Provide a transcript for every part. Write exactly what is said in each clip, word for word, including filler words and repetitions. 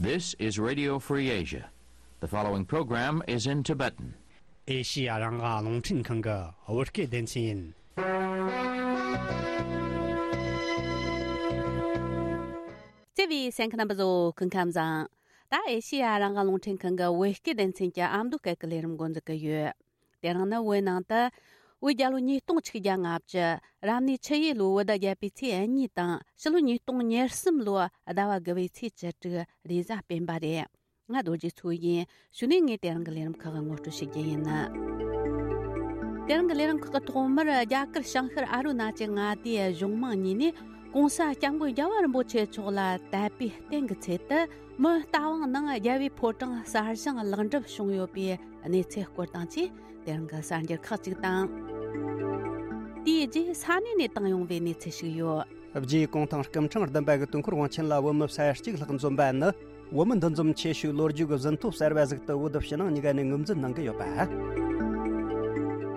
This is Radio Free Asia. The following program is in Tibetan. ཨེ་ཤི་ཡ་རང་དབང་རླུང་འཕྲིན་ཁང་གི་བོད་སྐད་སྡེ་ཚན་ཡིན། བརྩེ་བའི་གསན་མཁན་རྣམ་པ་ཚོ་སྐུ་ཁམས་བཟང་། ད་ཨེ་ཤི་ཡ་རང་དབང་རླུང་འཕྲིན་ཁང་གི་བོད་སྐད་སྡེ་ཚན་གྱི་ཨ་མདོ་སྐད་ཀྱི་ལས་རིམ་འགོ་འཛུགས་ཀྱི་ཡོད། དེ་རིང་ནི་བོད་ནང་དུ་བོད་རྒྱལ་ལོ་ཉིས་སྟོང་ཆིག་བརྒྱ་ལྔ་བཅུ། རབ་གནས་ཆུ་ཡོས་ལོའི་བོད་ཟླ་བརྒྱད་པའི་ཚེས་གཉིས་དང་ཕྱི་ལོ་ཉིས་སྟོང་ཉེར་གསུམ་ལོའི་ཟླ་བ་དགུ་བའི་ཚེས་བཅུ་དྲུག་རེས་གཟའ་སྤེན་པ་རེད། ང་རྡོ་རྗེ་མཚོ་ཡིན། གཞུག་ནས་ངས་དེ་རིང་གི་ལས་རིམ་ཁག་ངོ་སྤྲོད་ཞུ་རྒྱུ་ཡིན། དེ་རིང་གི་ལས་རིམ་ཁག་གི་ཐོག་མར་རྒྱ་གར་བྱང་ཤར་ཨ་རུ་ན་ཅལ་མངའ་སྡེའི་གཞུང་མང་གཉིས་ནས་༸གོང་ས་༸སྐྱབས་མགོན་རྒྱལ་བ་རིན་པོ་ཆེ་མཆོག་ལ་དད་པའི་རྟེན་གྱི་ཚད་དུ་མི་རྟ་དབང་ནང་རྒྱལ་བའི་ཕོ་བྲང་གསར་བཞེངས་ལེགས་འགྲུབ་བྱུང་ཡོད་པའི་གནས་ཚུལ་སྐོར་དང་བཅས་དེ་རིང་གི་གསར་འགྱུར་ཁག་ཅིག་དང་། དེའི་རྗེས་ས་གནས་ནས་བཏང་ཡོང་བའི་གནས་ཚུལ་ཞིག་ཡོད། རྗེ་གུང་ཐང་སྐུ་ཕྲེང་བདུན་པ་གི་དུས་འཁོར་དབང་ཆེན་ལ་བོད་མི་ས་ཡ་གཅིག་ལྷག་འཛོམས་པ་ནི། བོད་མི་འདུ་འཛོམས་ཆེ་ཤོས་ལོ་རྒྱུས་ཀྱི་ཟིན་ཐོ་གསར་བ་ཟིག་ཏུ་བོད་ཕྱི་ནང་གཉིས་ཀ་ནས་ངོས་འཛིན་གནང་གི་ཡོད་པ།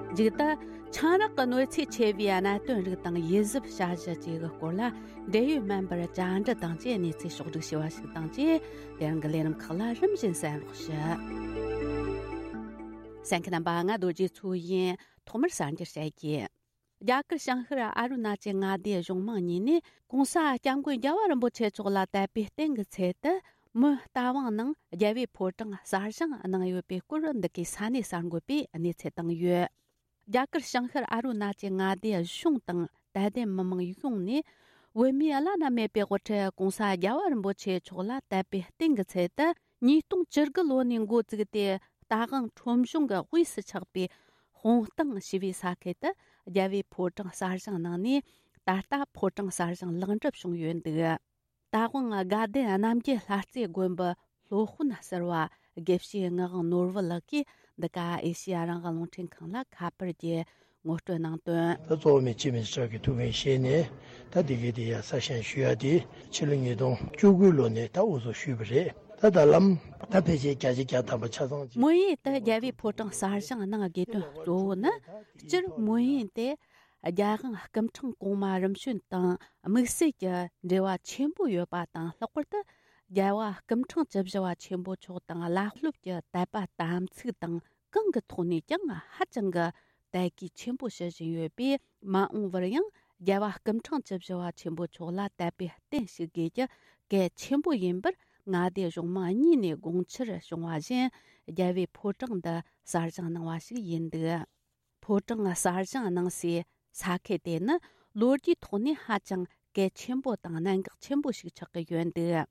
མཇུག་ཏུ། ཆང་རག་གི་གནོད་འཚེ་ཆེ་བའི་གནད་དོན་རིགས་དང་ཡིད་གཟབ་བྱ་གཞི་བཅས་ཀྱི་སྐོར་ལ་འབྲེལ་ཡོད་སྨན་པར་བཅར་འདྲི་དང་བཅས་གནས་ཚུལ་ཕྱོགས་བསྒྲིགས་ཞུས་པ་ཞིག་དང་བཅས་དེ་རིང་གི་ལས་རིམ་ཁག་ལ་རིམ་བཞིན་གསན་རོགས་ཞུ། གསན་མཁན་རྣམ་པ། ང་རྡོ་རྗེ་མཚོ་ཡིན། ཐོག་མར་གསར་འགྱུར་བཤད་རྒྱུ། རྒྱ་གར་བྱང་ཤར་ཨ་རུ་ན་ཅལ་མངའ་སྡེའི་གཞུང་མང་གཉིས་ནས་༸གོང་ས་༸སྐྱབས་མགོན་རྒྱལ་བ་རིན་པོ་ཆེ་མཆོག་ལ་དད་པའི་རྟེན་གྱི་ཚད་དུ་མི་རྟ་དབང་ནང་རྒྱལ་བའི་ཕོ་བྲང་གསར་བཞེངས་གནང་ཡོད་པའི་སྐོར་འདི་གའི་ས་གནས་གསར་འགོད་པས་གནས་ཚུལ་བཏང་ཡོད། རྒྱ་གར་བྱང་ཤར་ཨ་རུ་ན་ཅལ་མངའ་སྡེའི་གཞུང་དང་དད་ལྡན་མི་མང་ཡོངས་ནས་བོད་མིའི་བླ་ན་མེད་པའི་དབུ་ཁྲིད་༸གོང་ས་༸རྒྱལ་བ་རིན་པོ་ཆེ་མཆོག་ལ་དད་པའི་རྟེན་གྱི་ཚད་དུ་ཉིས་སྟོང་བཅུ་དགུ་ལོ་ནས་འགོ་བཙུགས་ཏེ་རྟ་དབང་ཁྲོམ་གཞུང་གི་དབུས་སུ་ཆགས་པའི་དཔུང་སྟེང་ཞེས་པའི་ས་ཁུལ་དུ་རྒྱལ་བའི་ཕོ་བྲང་གསར་བཞེངས་གནང་ནས་ད་ལྟ་ཕོ་བྲང་གསར་བཞེངས་ལེགས་འགྲུབ་བྱུང་ཡོད་འདུག་རྟ་དབང་དགའ་ལྡན་རྣམ་རྒྱལ་ལྷ་རྩེ་དགོན་པའི་སློབ་དཔོན་ཟུར་པ་དགེ་བཤེས་ངག་དབང་ནོར་བུ་ལགས་ཀྱིས་འདི་ག་ཨེ་ཤེ་ཡ་རང་དབང་རླུང་འཕྲིན་ཁང་ལ་ཁ་པར་གྱིས་ངོ་སྤྲོད་གནང་དོན། ད་གཙོ་བོ་མི་སྤྱི་མི་སྲིད་ཀྱི་ཐུགས་འགན་བཞེས་ནས་ད་འདི་གའི་དེ་ཡ་གསར་བཞེངས་ཞུ་ཡ་དེ་ཕྱི་ལོ་ཉིས་སྟོང་བཅུ་དགུ་ལོ་ནས་ད་འུ་ཚོ་ཞུས་པ་རེད། ད་ད་ལམ་ད་ཕལ་ཆེར་བརྒྱ་ཆ་བརྒྱ་ཐམ་པ་ཆ་ཚང་ཅིག་མོན་ཡུལ་དུ་རྒྱལ་བའི་ཕོ་བྲང་གསར་བཞེངས་གནང་དགོས་དོན་གཙོ་བོ་ནི་སྤྱིར་མོན་ཡུལ་དེ་རྒྱལ་དབང་སྐུ་ཕྲེང་གོང་མ་རིམ་བྱོན་དང་དམིགས་བསལ་གྱི་འབྲེལ་བ་ཆེན་པོ་ཡོད་པ་དང་། ལྷག་པར་དུ་རྒྱལ་བ་སྐུ་ཕྲེང་བཅུ་བཞི་པ་ཆེན་པོ་མཆོག་དང་བླ་སློབ་ཀྱི་དད་པ་དམ་ཚིག་དང་། གང་གི་ཐོག་ནས་ཀྱང་ཧ་ཅང་གི་དད་གུས་ཆེན་པོ་ཞུ་བཞིན་ཡོད་པས། མ་འོངས་པར་ཡང་རྒྱལ་བ་སྐུ་ཕྲེང་བཅུ་བཞི་པ་ཆེན་པོ་མཆོག་ལ་དད་པའི་རྟེན་ཞུ་དགོས་རྒྱུ་གལ་ཆེན་པོ་ཡིན་པར་མངའ་སྡེ་གཞུང་མང་གཉིས་ནས་དགོངས་འཆར་བྱུང་བ་བཞིན། རྒྱལ་བའི་ཕོ་བྲང་འདི་གསར་བཞེངས་གནང་བ་ཞིག་ཡིན་འདུག་ཕོ་བྲང་གསར་བཞེངས་གནང་སའི་ས་ཁུལ་དེ་ནི་ལོ་རྒྱུས་ཐོག་ནས་ཧ་ཅང་གལ་ཆེན་པོ་དང་གནད་འགག་ཆེན་པོ་ཞིག་ཆགས་ཀྱི་ཡོད་འདུག་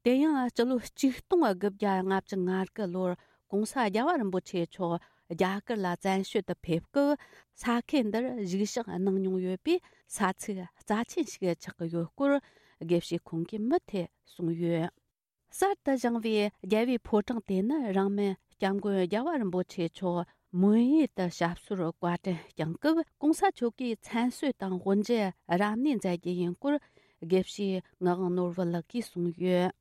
དེ་ཡང་སྤྱི་ལོ་ཆིག་སྟོང་དགུ་བརྒྱ་ལྔ་བཅུ་ང་དགུ་ལོར་༸གོང་ས་༸རྒྱལ་བ་རིན་པོ་ཆེ་མཆོག་རྒྱ་གར་ལ་བཙན་བྱོལ་དུ་ཕེབས་སྐབས། ས་ཁུལ་འདིར་བཞུགས་ཞག་གནང་མྱོང་ཡོད་པས། ས་ཚིགས་རྩ་ཆེན་ཞིག་ཆགས་ཀྱི་ཡོད་སྐོར་དགེ་བཤེས་ཁོང་གིས་མུ་མཐུད་གསུངས་ཡོད། གསར་དུ་བཞེངས་པའི་རྒྱལ་བའི་ཕོ་བྲང་དེ་ནི་རིང་མིན་༸སྐྱབས་མགོན་རྒྱལ་བ་རིན་པོ་ཆེ་མཆོག་མོན་ཡུལ་དུ་ཞབས་སོར་བཀའ་དྲིན་བསྐྱངས་སྐབས། ༸གོང་ས་མཆོག་གིས་མཚན་གསོལ་དང་དབུ་འབྱེད་རབ་གནས་མཛད་རྒྱུ་ཡིན་སྐོར་དགེ་བཤེས་ངག་དབང་ནོར་བུ་ལགས་ཀྱིས་གསུངས་ཡོད།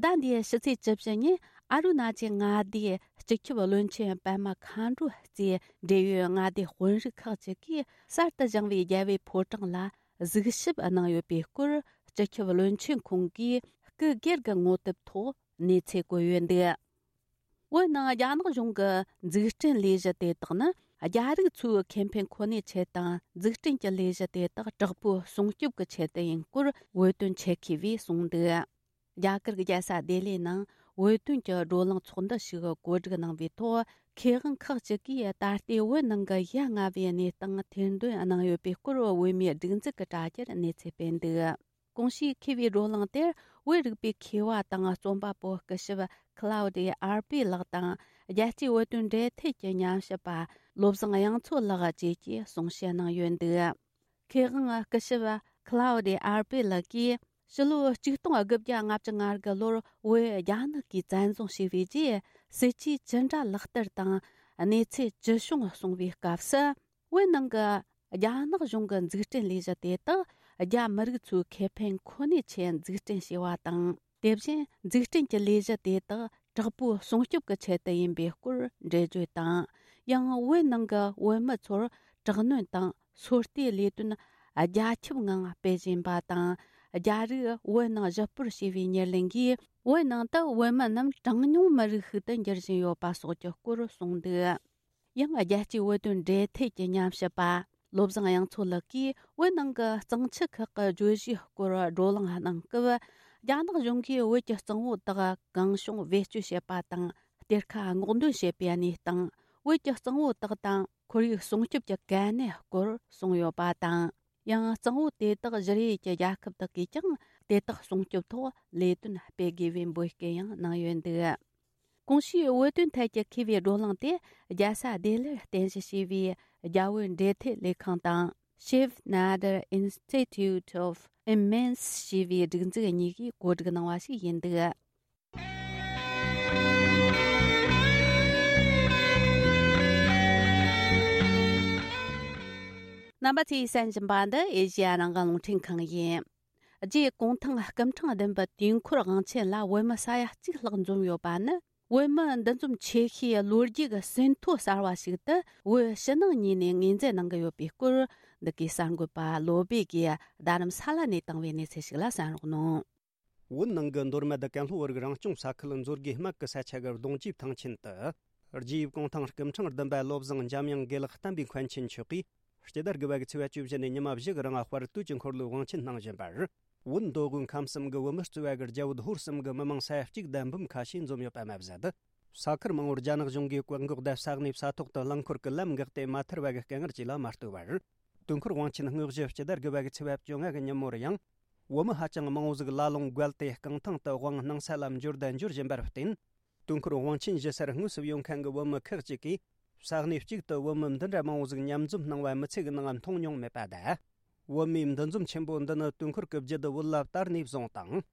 ཟླ་འདིའི་ཕྱི་ཚེས་བཅུ་བཞི་ཉིན་ཨ་རུ་ན་ཅལ་མངའ་སྡེའི་སྤྱི་ཁྱབ་བློན་ཆེན་པད་མ་མཁའ་འགྲོ་གཙོས་འབྲེལ་ཡོད་མངའ་སྡེ་དཔོན་རིགས་ཁག་ཅིག་གིས་གསར་དུ་བཞེངས་པའི་རྒྱལ་བའི་ཕོ་བྲང་ལ་གཟིགས་ཞིབ་གནང་ཡོད་པའི་སྐོར། སྤྱི་ཁྱབ་བློན་ཆེན་ཁོང་གིས་སྐུ་སྒེར་གྱི་ངོ་དེབ་ཐོག་གནས་ཚུལ་བཀོད་ཡོད་འདུག་བོད་ནང་རྒྱ་ནག་གཞུང་གི་འཛུགས་སྐྲུན་ལས་གཞི་དེ་དག་ནི་རྒྱ་རིགས་ཚོའི་ཁེ་ཕན་ཁོ་ནའི་ཆེད་དང་། འཛུགས་སྐྲུན་གྱི་ལས་གཞི་དེ་དག་དྲག་པོའི་སྲུང་སྐྱོབ་ཀྱི་ཆེད་དུ་ཡིན་སྐོར་བོད་དོན་ཆེད་མཁས་པས་གསུངས་འདུག་རྒྱ་གར་གྱི་རྒྱལ་ས་ལྡི་ལིའི་ནང་བོད་དོན་གྱི་བགྲོ་གླེང་ཚོགས་འདུ་ཞིག་གོ་སྒྲིག་གནང་བའི་ཐོག་མཁས་དབང་ཁག་ཅིག་གིས་ད་ལྟའི་བོད་ནང་གི་ཡ་ང་བའི་གནས་སྟངས་ཐེར་འདོན་གནང་ཡོད་པའི་སྐོར། བོད་མིའི་སྒྲིག་འཛུགས་ཀྱི་དྲ་རྒྱར་གནས་ཚུལ་སྤེལ་འདུག་གོང་ཞུས་མཁས་པའི་བགྲོ་གླེང་དེར་བོད་རིག་པའི་མཁས་པ་དང་རྩོམ་པ་པོ་སྐུ་ཞབས་ཁི་ལའོ་ཌི་ཨར་པེ་ལགས་དང་། རྒྱལ་སྤྱིའི་བོད་དོན་འབྲེལ་མཐུད་ཀྱི་ཉམས་ཞིབ་པ་བློ་བཟང་དབྱངས་མཚོ་ལགས་བཅས་ཀྱིས་གསུང་བཤད་གནང་ཡོད་འདུག་མཁས་དབང་སྐུ་ཞབས་ཁི་ལའོ་ཌི་ཨར་པེ་ལགས་ཀྱིས་ཕྱི་ལོ་ཆིག་སྟོང་དགུ་བརྒྱ་ལྔ་བཅུ་ང་དགུ་ལོར་བོད་རྒྱ་ནག་གིས་བཙན་བཟུང་བྱས་པའི་རྗེས། སྲིད་ཇུས་ཅི་འདྲ་ལག་བསྟར་དང་གནས་ཚུལ་ཅི་བྱུང་གསུང་བའི་སྐབས་སུ། བོད་ནང་གི་རྒྱ་ནག་གཞུང་གི་འཛུགས་སྐྲུན་ལས་གཞི་དེ་དག་རྒྱ་མི་རིགས་ཚོའི་ཁེ་ཕན་ཁོ་ནའི་ཆེད་འཛུགས་སྐྲུན་བྱས་པ་དང་། དེ་བཞིན་འཛུགས་སྐྲུན་གྱི་ལས་གཞི་དེ་དག་དྲག་པོའི་སྲུང་སྐྱོབ་ཀྱི་ཆེད་དུ་ཡིན་པའི་སྐོར་འགྲེལ་བརྗོད་དང་། ཡང་བོད་ནང་གི་བོད་མི་ཚོར་དྲག་གནོན་དང་སོ་ལྟའི་ལས་དོན་རྒྱ་ཁྱབ་ངང་སྤེལ་བཞིན་པ་དང་ རྒྱ་རིགས་བོད་ནང་ཞི་སྤོར་བྱས་པའི་ཉེར་ལེན་གྱིས་བོད་ནང་དུ་བོད་མི་རྣམས་གྲངས་ཉུང་མི་རིགས་ཤིག་ཏུ་འགྱུར་བཞིན་ཡོད་པ་སོགས་ཀྱི་སྐོར་གསུངས་འདུག། ཡང་རྒྱལ་སྤྱིའི་བོད་དོན་འབྲེལ་མཐུད་ཀྱི་ཉམས་ཞིབ་པ་བློ་བཟང་དབྱངས་མཚོ་ལགས་ཀྱིས་བོད་ནང་གི་གཙང་ཆུ་ཁག་གི་བརྗོད་གཞིའི་སྐོར་བགྲོ་གླེང་གནང་སྐབས། རྒྱ་ནག་གཞུང་གིས་བོད་ཀྱི་གཙང་བོ་དག་གང་བྱུང་བེད་སྤྱོད་བྱེད་པ་དང་གཏེར་ཁ་སྔོག་འདོན་བྱེད་པའི་གནས་སྟངས། བོད་ཀྱི་གཙང་བོ་དག་དང་ཁོར་ཡུག་སྲུང་སྐྱོབ་ཀྱི་གལ་གནད་སྐོར་གསུངས་ཡོད་པ་དང་། ཡང་གཙང་བོ་དེ་དག་བཞུར་ཡུལ་གྱི་རྒྱལ་ཁབ་དག་གིས་ཀྱང་དེ་དག་སྲུང་སྐྱོབ་ཐོག་ལས་དོན་སྤེལ་དགོས་པའི་འབོད་སྐུལ་ཡང་གནང་ཡོད་འདུག། གོང་ཞུས་བོད་དོན་ཐད་ཀྱི་མཁས་པའི་བགྲོ་གླེང་དེ་རྒྱལ་ས་ལྡི་ལིར་རྟེན་གཞི་བྱས་པའི་རྒྱ་བོད་འབྲེལ་མཐུད་ལས་ཁང་དང་Shiv Nadar Institute of Immense ཞེས་པའི་སྒྲིག་འཛུགས་གཉིས་ཀྱིས་གོ་སྒྲིག་གནང་བ་ཞིག་ཡིན་འདུག། རྣམ་པ་ཚོས་གསན་བཞིན་པ་འདི་ཨེ་ཤེ་ཡ་རང་དབང་རླུང་འཕྲིན་ཁང་ཡིན། རྗེ་གུང་ཐང་སྐུ་ཕྲེང་བདུན་པའི་དུས་འཁོར་དབང་ཆེན་ལ་བོད་མི་ས་ཡ་གཅིག་ལྷག་འཛོམས་ཡོད་པ་ནི། བོད་མི་འདུ་འཛོམས་ཆེ་ཤོས་ལོ་རྒྱུས་ཀྱི་ཟིན་ཐོ་གསར་བ་ཞིག་ཏུ་བོད་ཕྱི་ནང་གཉིས་ནས་ངོས་འཛིན་གནང་གི་ཡོད་པའི་སྐོར། འདི་གའི་གསར་འགོད་པ་བློ་སྦེ་གིས་རྡ་རམ་ས་ལ་ནས་བཏང་བའི་གནས་ཚུལ་ཞིག་ལ་གསན་རོགས་གནང་། བོད་ནང་གི་མདོ་སྨད་ཀན་ལྷོ་བོད་རིགས་རང་སྐྱོང་ས་ཁུལ་མཛོད་དགེ་སྨད་ཀྱི་ས་ཆ་གི་གདུང་རྒྱུད་ཐང་ཆེན་དུ། རྗེ་ཡབ་གུང་ཐང་སྐུ་ཕྲེང་བདུན་པ་བློ་བཟང་འཇམ་དབྱངས་དགེ་ལེགས་བསྟན་པའི་མཁན་ཆེན་མཆོག་གིས། སྤྱི་ཟླ་དགུ་པ་གི་ཚེས་པ་བཅུ་བཞི་ནས་ཉི་མ་བཞི་གི་རིང་དཔལ་དུས་ཀྱི་འཁོར་ལོའི་དབང་ཆེན་གནང་བཞིན་པར། བོད་མདོ་དབུས་ཁམས་གསུམ་གྱི་བོད་མི་གཙོས་པ་གི་རྒྱ་བོད་ཧོར་གསུམ་གྱི་མི་མང་ས་ཡ་གཅིག་དང་འབུམ་ཁ་ཤས་འཛོམས་ཡོད་པ་མ་ཟད། ས་ཁུལ་མང་བོར་རྒྱ་ནག་གཞུང་གིས་བཀག་འགོག་དང་ས་གནས་ས་ཐོག་ཏུ་རླངས་འཁོར་གྱི་ལམ་འགག་སྟེ་མ་ཐར་བ་གི་དཀའ་ངལ་བཅས་ལ་མ་ལྟོས་པར། དུས་འཁོར་དབང་ཆེན་དངོས་གཞི་སྤྱི་ཟླ་དགུ་པ་གི་ཚེས་པ་བཅོ་ལྔ་གི་ཉིན་མོར་ཡང་། བོད་མི་ཧ་ཅང་མང་བོ་ཟིག་ལ་ལུང་བརྒལ་ཏེ་རྐང་ཐང་དུ་དབང་གནང་ས་ལ་འབྱོར་དང་འབྱོར་བཞིན་པར་བརྟེན། དུས་འཁོར་དབང་ཆེན་བཞུགས་སར་དངོས་སུ་ཡོང་མཁན་གྱི་བོད་མི་ཁག་ཅིག་གིས། ས་གནས་གཅིག་ཏུ་བོད་མི་འདི་འདྲ་མང་བོ་ཟིག་མཉམ་འཛོམས་གནང་བ་མི་ཚེ་གི་ནང་མཐོང་མྱོང་མེད་པ་དང་། བོད་མིའི་འདུ་འཛོམས་ཆེན་པོ་འདི་ནི་དུས་འཁོར་གྱི་རྒྱུད་དུ་བོད་ལ་དར་ནས་བཟུང་དང་།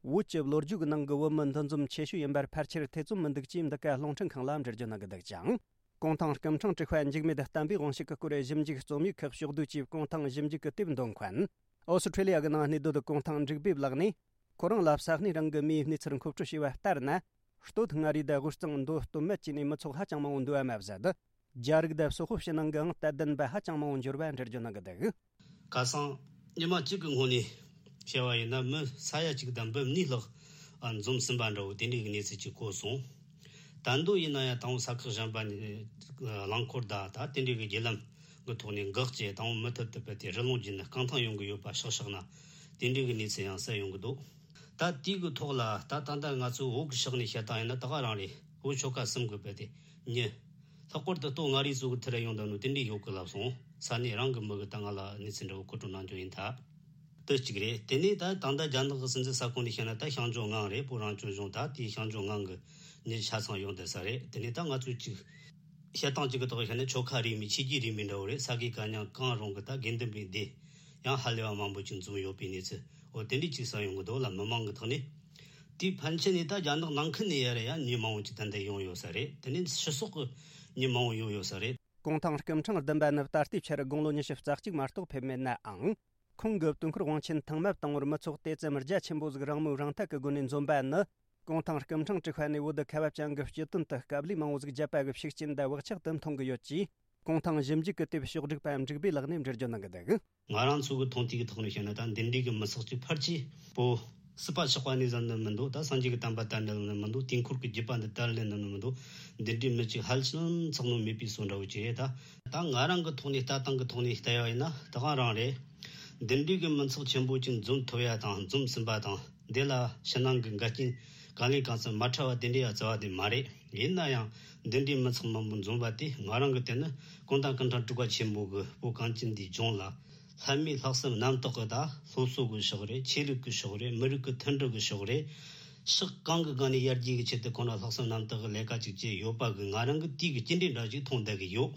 བོད་ཀྱི་ལོ་རྒྱུས་ཀྱི་ནང་གི་བོད་མི་འདུ་འཛོམས་ཆེ་ཤོས་ཡིན་པར་ཕལ་ཆེར་ཐེ་ཚོམ་མི་འདུག་ཅེས་འདི་ག་རླུང་འཕྲིན་ཁང་ལ་འགྲེལ་བརྗོད་གནང་གི་འདུག་ཅིང་། གུང་ཐང་སྐུ་ཕྲེང་དྲུག་པ་འཇིགས་མེད་བསྟན་པའི་དབང་ཕྱུག་གི་སྐུ་རུ་ཞིབ་འཇུག་རྩོམ་ཡིག་ཁག་ཕྱོགས་བསྡུས་ཀྱིས་གུང་ཐང་ཞིབ་འཇུག་གི་དེབ་འདོན་མཁན། ཨོ་སི་ཁྲེ་ལི་ཡ་གི་ནང་གནས་སྡོད་གུང་ཐང་འབྲུག་སྦས་ལགས་ནས། ཁོ་རང་ལ་ས་གནས་རང་གི་མིའི་གནས་ཚུལ་མཁོ་སྤྲོད་བྱས་པ་ལྟར་ན། སྟོད་མངའ་རིས་དང་དབུས་གཙང་མདོ་སྟོད་སྨད་བཅས་ནས་མི་ཚོགས་ཧ་ཅང་མང་བོ་འདུ་བ་མ་ཟད། རྒྱ་རིགས་དང་སོག་པོ་ཕྱི་ནང་གི་ཨང་རྟགས་ལྡན་པ་ཧ་ཅང་མང་བོ་འབྱོར་བ་འགྲེལ་བརྗོད་གནང་གི་འདུག། ཁ་སང་ཉི་མ་གཅིག་གི་སྔོན་ནས་བཤད་པ་ཡིན་ན། མི་ས་ཡ་གཅིག་དང་འབུམ་གཉིས་ལྷག་འཛོམས་ཟིན་པ་འདྲ་བོ་དེ་འདྲའི་གནས་ཚུལ་ཅིག་གོ་སོང་། ད་དུང་ཡིན་ན་ཡང་དང་པོ་ས་ཁུལ་གཞན་པ་ནས་རླངས་འཁོར་དང་ད་དེ་འདྲའི་གི་བརྒྱུད་ལམ་གི་ཐོག་ནས་འགག་བྱས། དང་པོ་མུ་མཐུད་དུ་བུད་དེ་རི་ལུང་བརྒྱུད་ནས་རྐང་ཐང་ཡོང་གི་ཡོད་པ་ཤག་ཤག་ན། དེ་འདྲའི་གི་གནས་ཚུལ་ཡང་གསལ་ཡོང་གི་འདུག། ད་དེའི་གི་ཐོག་ལ་ད་ད་ལྟ་ང་ཚོའི་བོད་གི་ཕྱོགས་ནས་བཤད་སྟངས་ཡིན་ན་ད་ག་རང་རེད། བོད་ཆོལ་ཁ་གསུམ་གི་བུད་དེ་མྱི། ལྷག་པར་དུ་སྟོད་མངའ་རིས་ཚོ་གི་ཐད་ལ་ཡོང་དང་ནོ་དེ་འདྲའི་ཡོད་གི་ལབ་སོང་། ས་གནས་རང་གི་མི་གི་ད་ང་ལ་གནས་ཚུལ་འདྲ་བོ་མཁོ་སྤྲོད་གནང་རྒྱུ་ཡིན་ད། དེ་གཅིག་རེད། དེ་ནས་ད་ད་ལྟ་རྒྱ་ནག་གི་སྲིད་འཛིན་ས་ཁོངས་ནས་བཤད་ན་ད་ཤང་ཅུང་ངང་རེད། བོད་རང་སྐྱོང་ལྗོངས། ད་དེའི་ཤང་ཅུང་ངང་གི་མྱི་ཆ་ཚང་ཡོང་བསྡད་ས་རེད། དེ་ནས་ད་ང་ཚོས་གཅིག་བཤད་སྟངས་གཅིག་གི་ཐོག་བཤད་ན་ཆོལ་ཁ་རིས་མེད་ཆོས་བརྒྱུད་རིས་མེད་འདྲ་བོ་རེད། ས་དགེ་བཀའ་རྙིང་གང་རུང་གི་ད་དགེ་འདུན་པའི་སྡེ་ཡང་ཧ་ལས་པ་མང་པོ་ཅིག་འཛོམས་ཡོད་པའི་གནས་ཚུལ། འོ་དེ་འདྲས་ཅིག་གསན་ཡོང་གི་འདུག་ལ། མི་མང་གི་ཐོག་ནས། དེའི་ཕན་ཆད་ནས་ད་རྒྱ་ནག་ནང་ཁུལ་ནས་ཡར་ཡང་མྱི་མང་བོ་ཅིག་ཏན་ཏན་ཡོང་ཡོད་ས་རེད། དེ་ནས་ཕྱི་སོག་གི་མྱི་མང་བོ་ཡོང་ཡོད་ས་རེད། གུང་ཐང་སྐུ་ཕྲེང་བདུན་པ་ནི་ད་ལྟའི་ཆར་དགུང་ལོ་ཉི་ཤུ་རྩ་གཅིག་མ་གཏོགས་ཕེབས་མེད་ནའང་། ཁོང་གི་དུས་འཁོར་དབང་ཆེན་ཐེངས་མ་དང་པོར་མི་ཚོགས་དེ་ཙམ་རྒྱ་ཆེན་པོ་ཟིག་རང་མོས་རང་འཐད་ཀྱི་སྒོ་ནས་འཛོམས་པ་ནི། གུང་ཐང་སྐུ་ཕྲེང་དྲུག་པ་ནས་བོད་དུ་ཁ་བ་ཅན་གྱི་སྤྱི་དོན་དུ་དཀའ་ལས་མང་བོ་ཟིག་བརྒྱབ་པ་གི་ཤུགས་རྐྱེན་དང་བག་ཆགས་དེ་མཐོང་གི་ཡོད་ཅེས། གུང་ཐང་ཞིབ་འཇུག་གི་དེབ་ཕྱོགས་སྒྲིག་པ་འབྲུག་སྦས་ལགས་ནས་འགྲེལ་བརྗོད་གནང་གི་འདུག། ང་རང་ཚོ་གི་མཐོང་ཐོས་ཀྱི་ཐོག་ནས་བཤད་ན། ད་འདི་འདྲའི་གི་མི་ཚོགས་ཀྱི་ཕལ་ཆེར་པོ་སྲིད་པ་ཆགས་པ་ནས་བཟུང་ནི་མི་འདུག། ད་སངས་རྒྱས་ཀྱི་བསྟན་པ་དར་ནི་ལ་ནི་མི་འདུག། དུས་འཁོར་གྱི་བརྒྱུད་པ་འདི་དར་ལེན་ནི་ནི་མི་འདུག། འདི་འདྲའི་མི་གཅིག་ཧ་ཅང་ཚང་ནོ་མེད་པའི་བཟོ་འདྲ་བོ་ཅིག་རེད། ད་ད་ང་རང་གི་ཐོག་ནས་ལྟ་སྟངས་ཀྱི་ཐོག་ནས་བལྟ་ཡ་ཡིན་ན་ད་གང་རང་རེད། འདི་འདྲའི་གི་མི་ཚོགས་ཆེན་པོ་ཅིག་འཛོམས་ཐུབ་ཡ་དང་འཛོམས་ཟིན་པ་དང་། འདི་ལ་ཕྱི་ནང་གི་འགལ་རྐྱེན་གང་ལས་གང་འཚམ་མ་འཕྲད་པ་དེ་འདྲའི་ཡ་རྩ་བ་དེ་མ་རེད། ཡིན་ན་ཡང་འདི་འདྲའི་མི་ཚང་མང་པོ་འཛོམས་པ་དེ་ང་རང་གི་དེ་ནི་གུང་ཐང་སྐུ་ཕྲེང་དྲུག་པ་ཆེན་པོ་གི་བོད་གངས་ཅན་འདིའི་ལྗོངས་ལ་ལྷ་མིའི་ལྷག་བསམ་རྣམ་དག་གི། ད་སློབ་གསོ་གི་ཕྱོགས་རེད། ཆོས་ལུགས་ཀྱི་ཕྱོགས་རེད། མི་རིགས་ཀྱི་མཐུན་སྒྲིལ་གྱི་ཕྱོགས་རེད། ཕྱོགས་གང་གི་སྒང་ནས་ཡར་རྒྱས་ཀྱི་ཆེད་དུ་ཁོང་རང་ལྷག་བསམ་རྣམ་དག་གི་ལས་ཀ་ཅིག་བྱས་ཡོད་པ་གི་ང་རང་གི་དེའི་གི་སྐྱེ་འདྲེན་འདྲ་ཞིག་མཐོང་བསྡད་གི་ཡོད།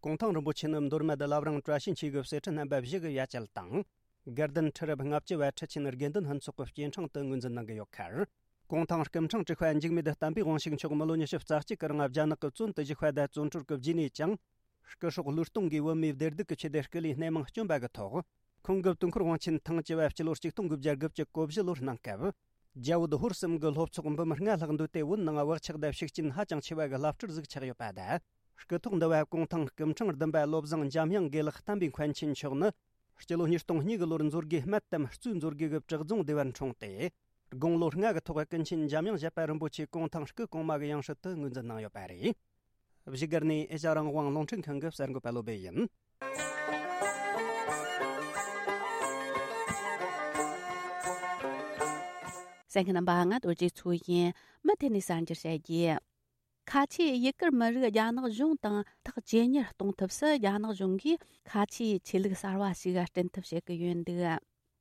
གུང་ཐང་རིན་པོ་ཆེ་ནི་མདོ་སྨད་བླ་བྲང་བཀྲ་ཤིས་འཁྱིལ་གྱི་གསེར་ཁྲི་རྣམ་པ་བཞི་གི་ཡ་གྱལ་དང་། དགའ་ལྡན་ཁྲི་རབས་ལྔ་བཅུ་པ་ཁྲི་ཆེན་དགེ་འདུན་ཕུན་ཚོགས་ཀྱི་སྐྱེ་འཕྲེང་དུ་ངོས་འཛིན་གནང་གི་ཡོད་ཁར། གུང་ཐང་སྐུ་ཕྲེང་དྲུག་པ་འཇིགས་མེད་བསྟན་པའི་དབང་ཕྱུག་མཆོག་མི་ལོ་ཉི་ཤུ་རྩ་གཅིག་གི་རིང་རྒྱ་ནག་གི་བཙོན་དུ་བཞུགས་པ་དང་བཙོན་གྲོལ་གྱི་རྗེས་ནས་ཀྱང་། སྐུ་སྲོག་བློས་གཏོང་གིས་བོད་མིའི་བདེ་སྡུག་གི་ཆེད་དུ་སྐུ་ལུས་སྣེ་མང་བསྐྱོན་པ་གི་ཐོག། ཁོང་གི་དུས་འཁོར་དབང་ཆེན་ཐེངས་བཅུ་པ་སྤྱི་ལོ་གཅིག་སྟོང་དགུ་བརྒྱ་དགུ་བཅུ་གོ་བཞི་ལོར་གནང་སྐབས། རྒྱ་བོད་ཧོར་གསུམ་གྱི་སློབ་ཚོགས་འབུམ་ལྔ་ལྷག་འདུས་ཏེ་བོད་ནང་བག་ཆགས་དང་ཤུགས་རྐྱེན་ཧ་ཅང་ཆེ་བ་གི་བླ་སྤྲུལ་ཟིག་ཆགས་ཡོད་པ་དང་། སྐུ་ཐོག་འདུ་བ་གུང་ཐང་སྐུ་ཕྲེང་བདུན་པ་བློ་བཟང་འཇམ་དབྱངས་དགེ་ལེགས་བསྟན་པའི་མཁན་ཆེན་མཆོག་ནི། སྤྱི་ལོ་ཉིས་སྟོང་གཉིས་གི་ལོར་མཛོད་དགེ་སྨད་དམ་གཙོས་མཛོད་དགེ་གི་བྲག་རྫོང་སྡེ་བར་འཁྲུངས་ཏེ། དགུང་ལོ་ལྔ་གི་ཐོག་ཀུན་མཁྱེན་འཇམ་དབྱངས་བཞད་པ་རིན་པོ་ཆེ་གུང་ཐང་སྐུ་གོང་མ་གི་ཡང་སྲིད་དུ་ངོས་འཛིན་གནང་ཡོད་པ་རེད། བཞུགས་སྒར་ནས་ཨེ་ཤ་རང་དབང་རླུང་འཕྲིན་ཁང་གི་གསར་འགོད་པ་བློ་སྦེ་ཡིན། གསན་མཁན་རྣམ་པ། ང་རྡོ་རྗེ་མཚོ་ཡིན། མུ་མཐུད་ནས་གསར་འགྱུར་བཤད་རྒྱུ། ཁ་ཆེའི་ཡུ་གུར་མི་རིགས་རྒྱ་ནག་གཞུང་དང་ཐག་ཇེ་ཉེར་གཏོང་ཐབས་སུ། རྒྱ་ནག་གཞུང་གིས་ཁ་ཆེའི་ཆོས་ལུགས་གསར་བ་ཞིག་སྐྲུན་ཐབས་བྱེད་ཀྱི་ཡོད་འདུག།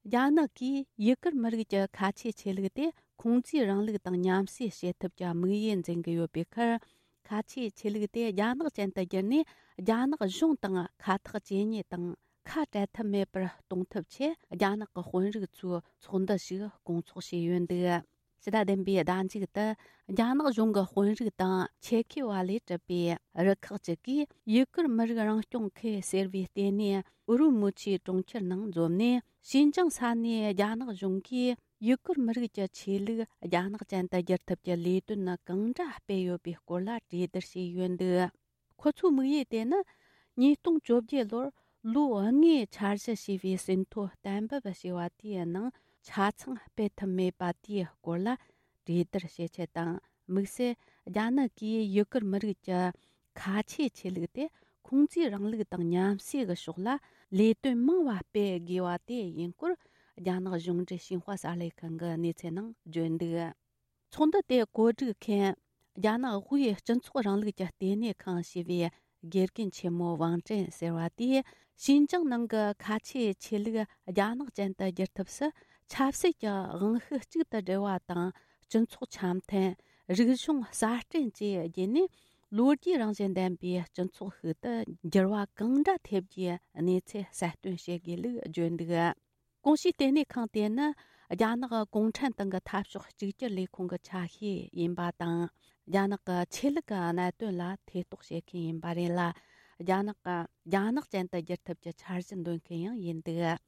རྒྱ་ནག་གིས་ཡུ་གུར་མི་རིགས་ཀྱི་ཁ་ཆེའི་ཆོས་ལུགས་དེ་ཁུང་ཙིའི་རིང་ལུགས་དང་མཉམ་བསྲེས་བྱེད་ཐབས་ཀྱི་དམིགས་ཡུལ་འཛིན་གྱི་ཡོད་པའི་ཁར། ཁ་ཆེའི་ཆོས་ལུགས་དེ་རྒྱ་ནག་ཅན་དུ་བསྒྱུར་ནས། རྒྱ་ནག་གཞུང་དང་ཁ་ཐག་ཇེ་ཉེ་དང་ཁ་བྲལ་ཐབས་མེད་པར་གཏོང་ཐབས་ཆེད། རྒྱ་ནག་གི་དཔོན་རིགས་ཚོས་ཚོགས་འདུ་ཞིག་སྐོང་ཚོགས་བྱས་ཡོད་འདུག། ཕྱི་ཟླ་བདུན་པའི་ཟླ་མཇུག་ཏུ། རྒྱ་ནག་གཞུང་གི་དཔོན་རིགས་དང་ཆེད་མཁས་པ་ལས་གྲུབ་པའི་རུ་ཁག་ཅིག་གིས། ཡུ་གུར་མི་རིགས་རང་སྐྱོང་ཁུལ་ཟེར་བའི་ལྟེ་གནས་ཨུ་རུ་མུ་ཆིའི་གྲོང་ཁྱེར་ནང་འཛོམས་ནས། ཞིན་ཅང་ས་གནས་རྒྱ་ནག་གཞུང་གིས་ཡུ་གུར་མི་རིགས་ཀྱི་ཆོས་ལུགས་རྒྱ་ནག་ཅན་དུ་བསྒྱུར་ཐབས་ཀྱི་ལས་དོན་ནི་གང་འདྲ་སྤེལ་ཡོད་པའི་སྐོར་ལ་གྲོས་བསྡུར་བྱས་ཡོད་འདུག། ཁོ་ཚོའི་དམིགས་ཡུལ་དེ་ནི། ཉིས་སྟོང་བཅོ་བརྒྱད་ལོར་ལོ་ལྔའི་འཆར་གཞི་ཞེས་པའི་ཟིན་ཐོ་གཏན་འབེབས་བྱས་པ་དེའི་ནང་ཆ་ཚང་སྤེལ་ཐུབ་མེད་པ་དེའི་སྐོར་ལ་གྲོས་བསྡུར་བྱེད་ཆེད་དང་། དམིགས་བསལ་རྒྱ་ནག་གིས་ཡུ་གུར་མི་རིགས་ཀྱི་ཁ་ཆེའི་ཆོས་ལུགས་དེ་ཁུང་ཙིའི་རིང་ལུགས་དང་མཉམ་བསྲེས་ཀྱི་ཕྱོགས་ལ་ལས་དོན་མང་བ་སྤེལ་དགོས་པ་དེ་ཡིན་སྐོར། རྒྱ་ནག་གཞུང་འབྲེལ་ཤིན་ཧྭ་གསར་ལས་ཁང་གི་གནས་ཚུལ་ནང་བརྗོད་འདུག། ཚོགས་འདུ་དེ་གོ་སྒྲིག་མཁན། རྒྱ་ནག་དབུས་སྤྱི་ཚོགས་རིང་ལུགས་ཀྱི་ལྟེ་གནས་ཁང་ཞེས་པའི་དགེ་རྒན་ཆེན་མོ་ཝང་ཀྲེན་ཟེར་བ་དེས། ཞིན་ཅང་ནང་གི་ཁ་ཆེའི་ཆོས་ལུགས་རྒྱ་ནག་ཅན་དུ་བསྒྱུར་ཐབས་སུ། ཆབ་སྲིད་ཀྱི་དབང་ཤུགས་གཅིག་ཏུ་སྒྲིལ་བ་དང་། སྤྱི་ཚོགས་འཆམ་མཐུན། རིག་གཞུང་གསར་སྐྲུན་བཅས་བརྒྱུད་ནས། ལོ་རྒྱུས་རང་བཞིན་ལྡན་པའི་སྤྱི་ཚོགས་ཤིག་ཏུ་འགྱུར་བ་གང་འདྲ་ཐེབས་རྒྱུའི་གནས་ཚུལ་གསལ་སྟོན་བྱེད་དགོས་ལུགས་བརྗོད་འདུག། གོང་ཞུས་ལྟེ་གནས་ཁང་དེ་ནི་རྒྱ་ནག་གུང་ཁྲན་ཏང་གི་འཐབ་ཕྱོགས་གཅིག་གྱུར་ལས་ཁུངས་ཀྱི་ཆ་ཤས་ཡིན་པ་དང་། རྒྱ་ནག་གི་ཆོས་ལུགས་ཀྱི་གནད་དོན་ལ་ཐེ་གཏོགས་བྱེད་མཁན་ཡིན་པ་རེད་ལ། རྒྱ་ནག་གི་རྒྱ་ནག་ཅན་དུ་བསྒྱུར་ཐབས་ཀྱི་འཆར་གཞི་འདོན་མཁན་ཡང་ཡིན་འདུག།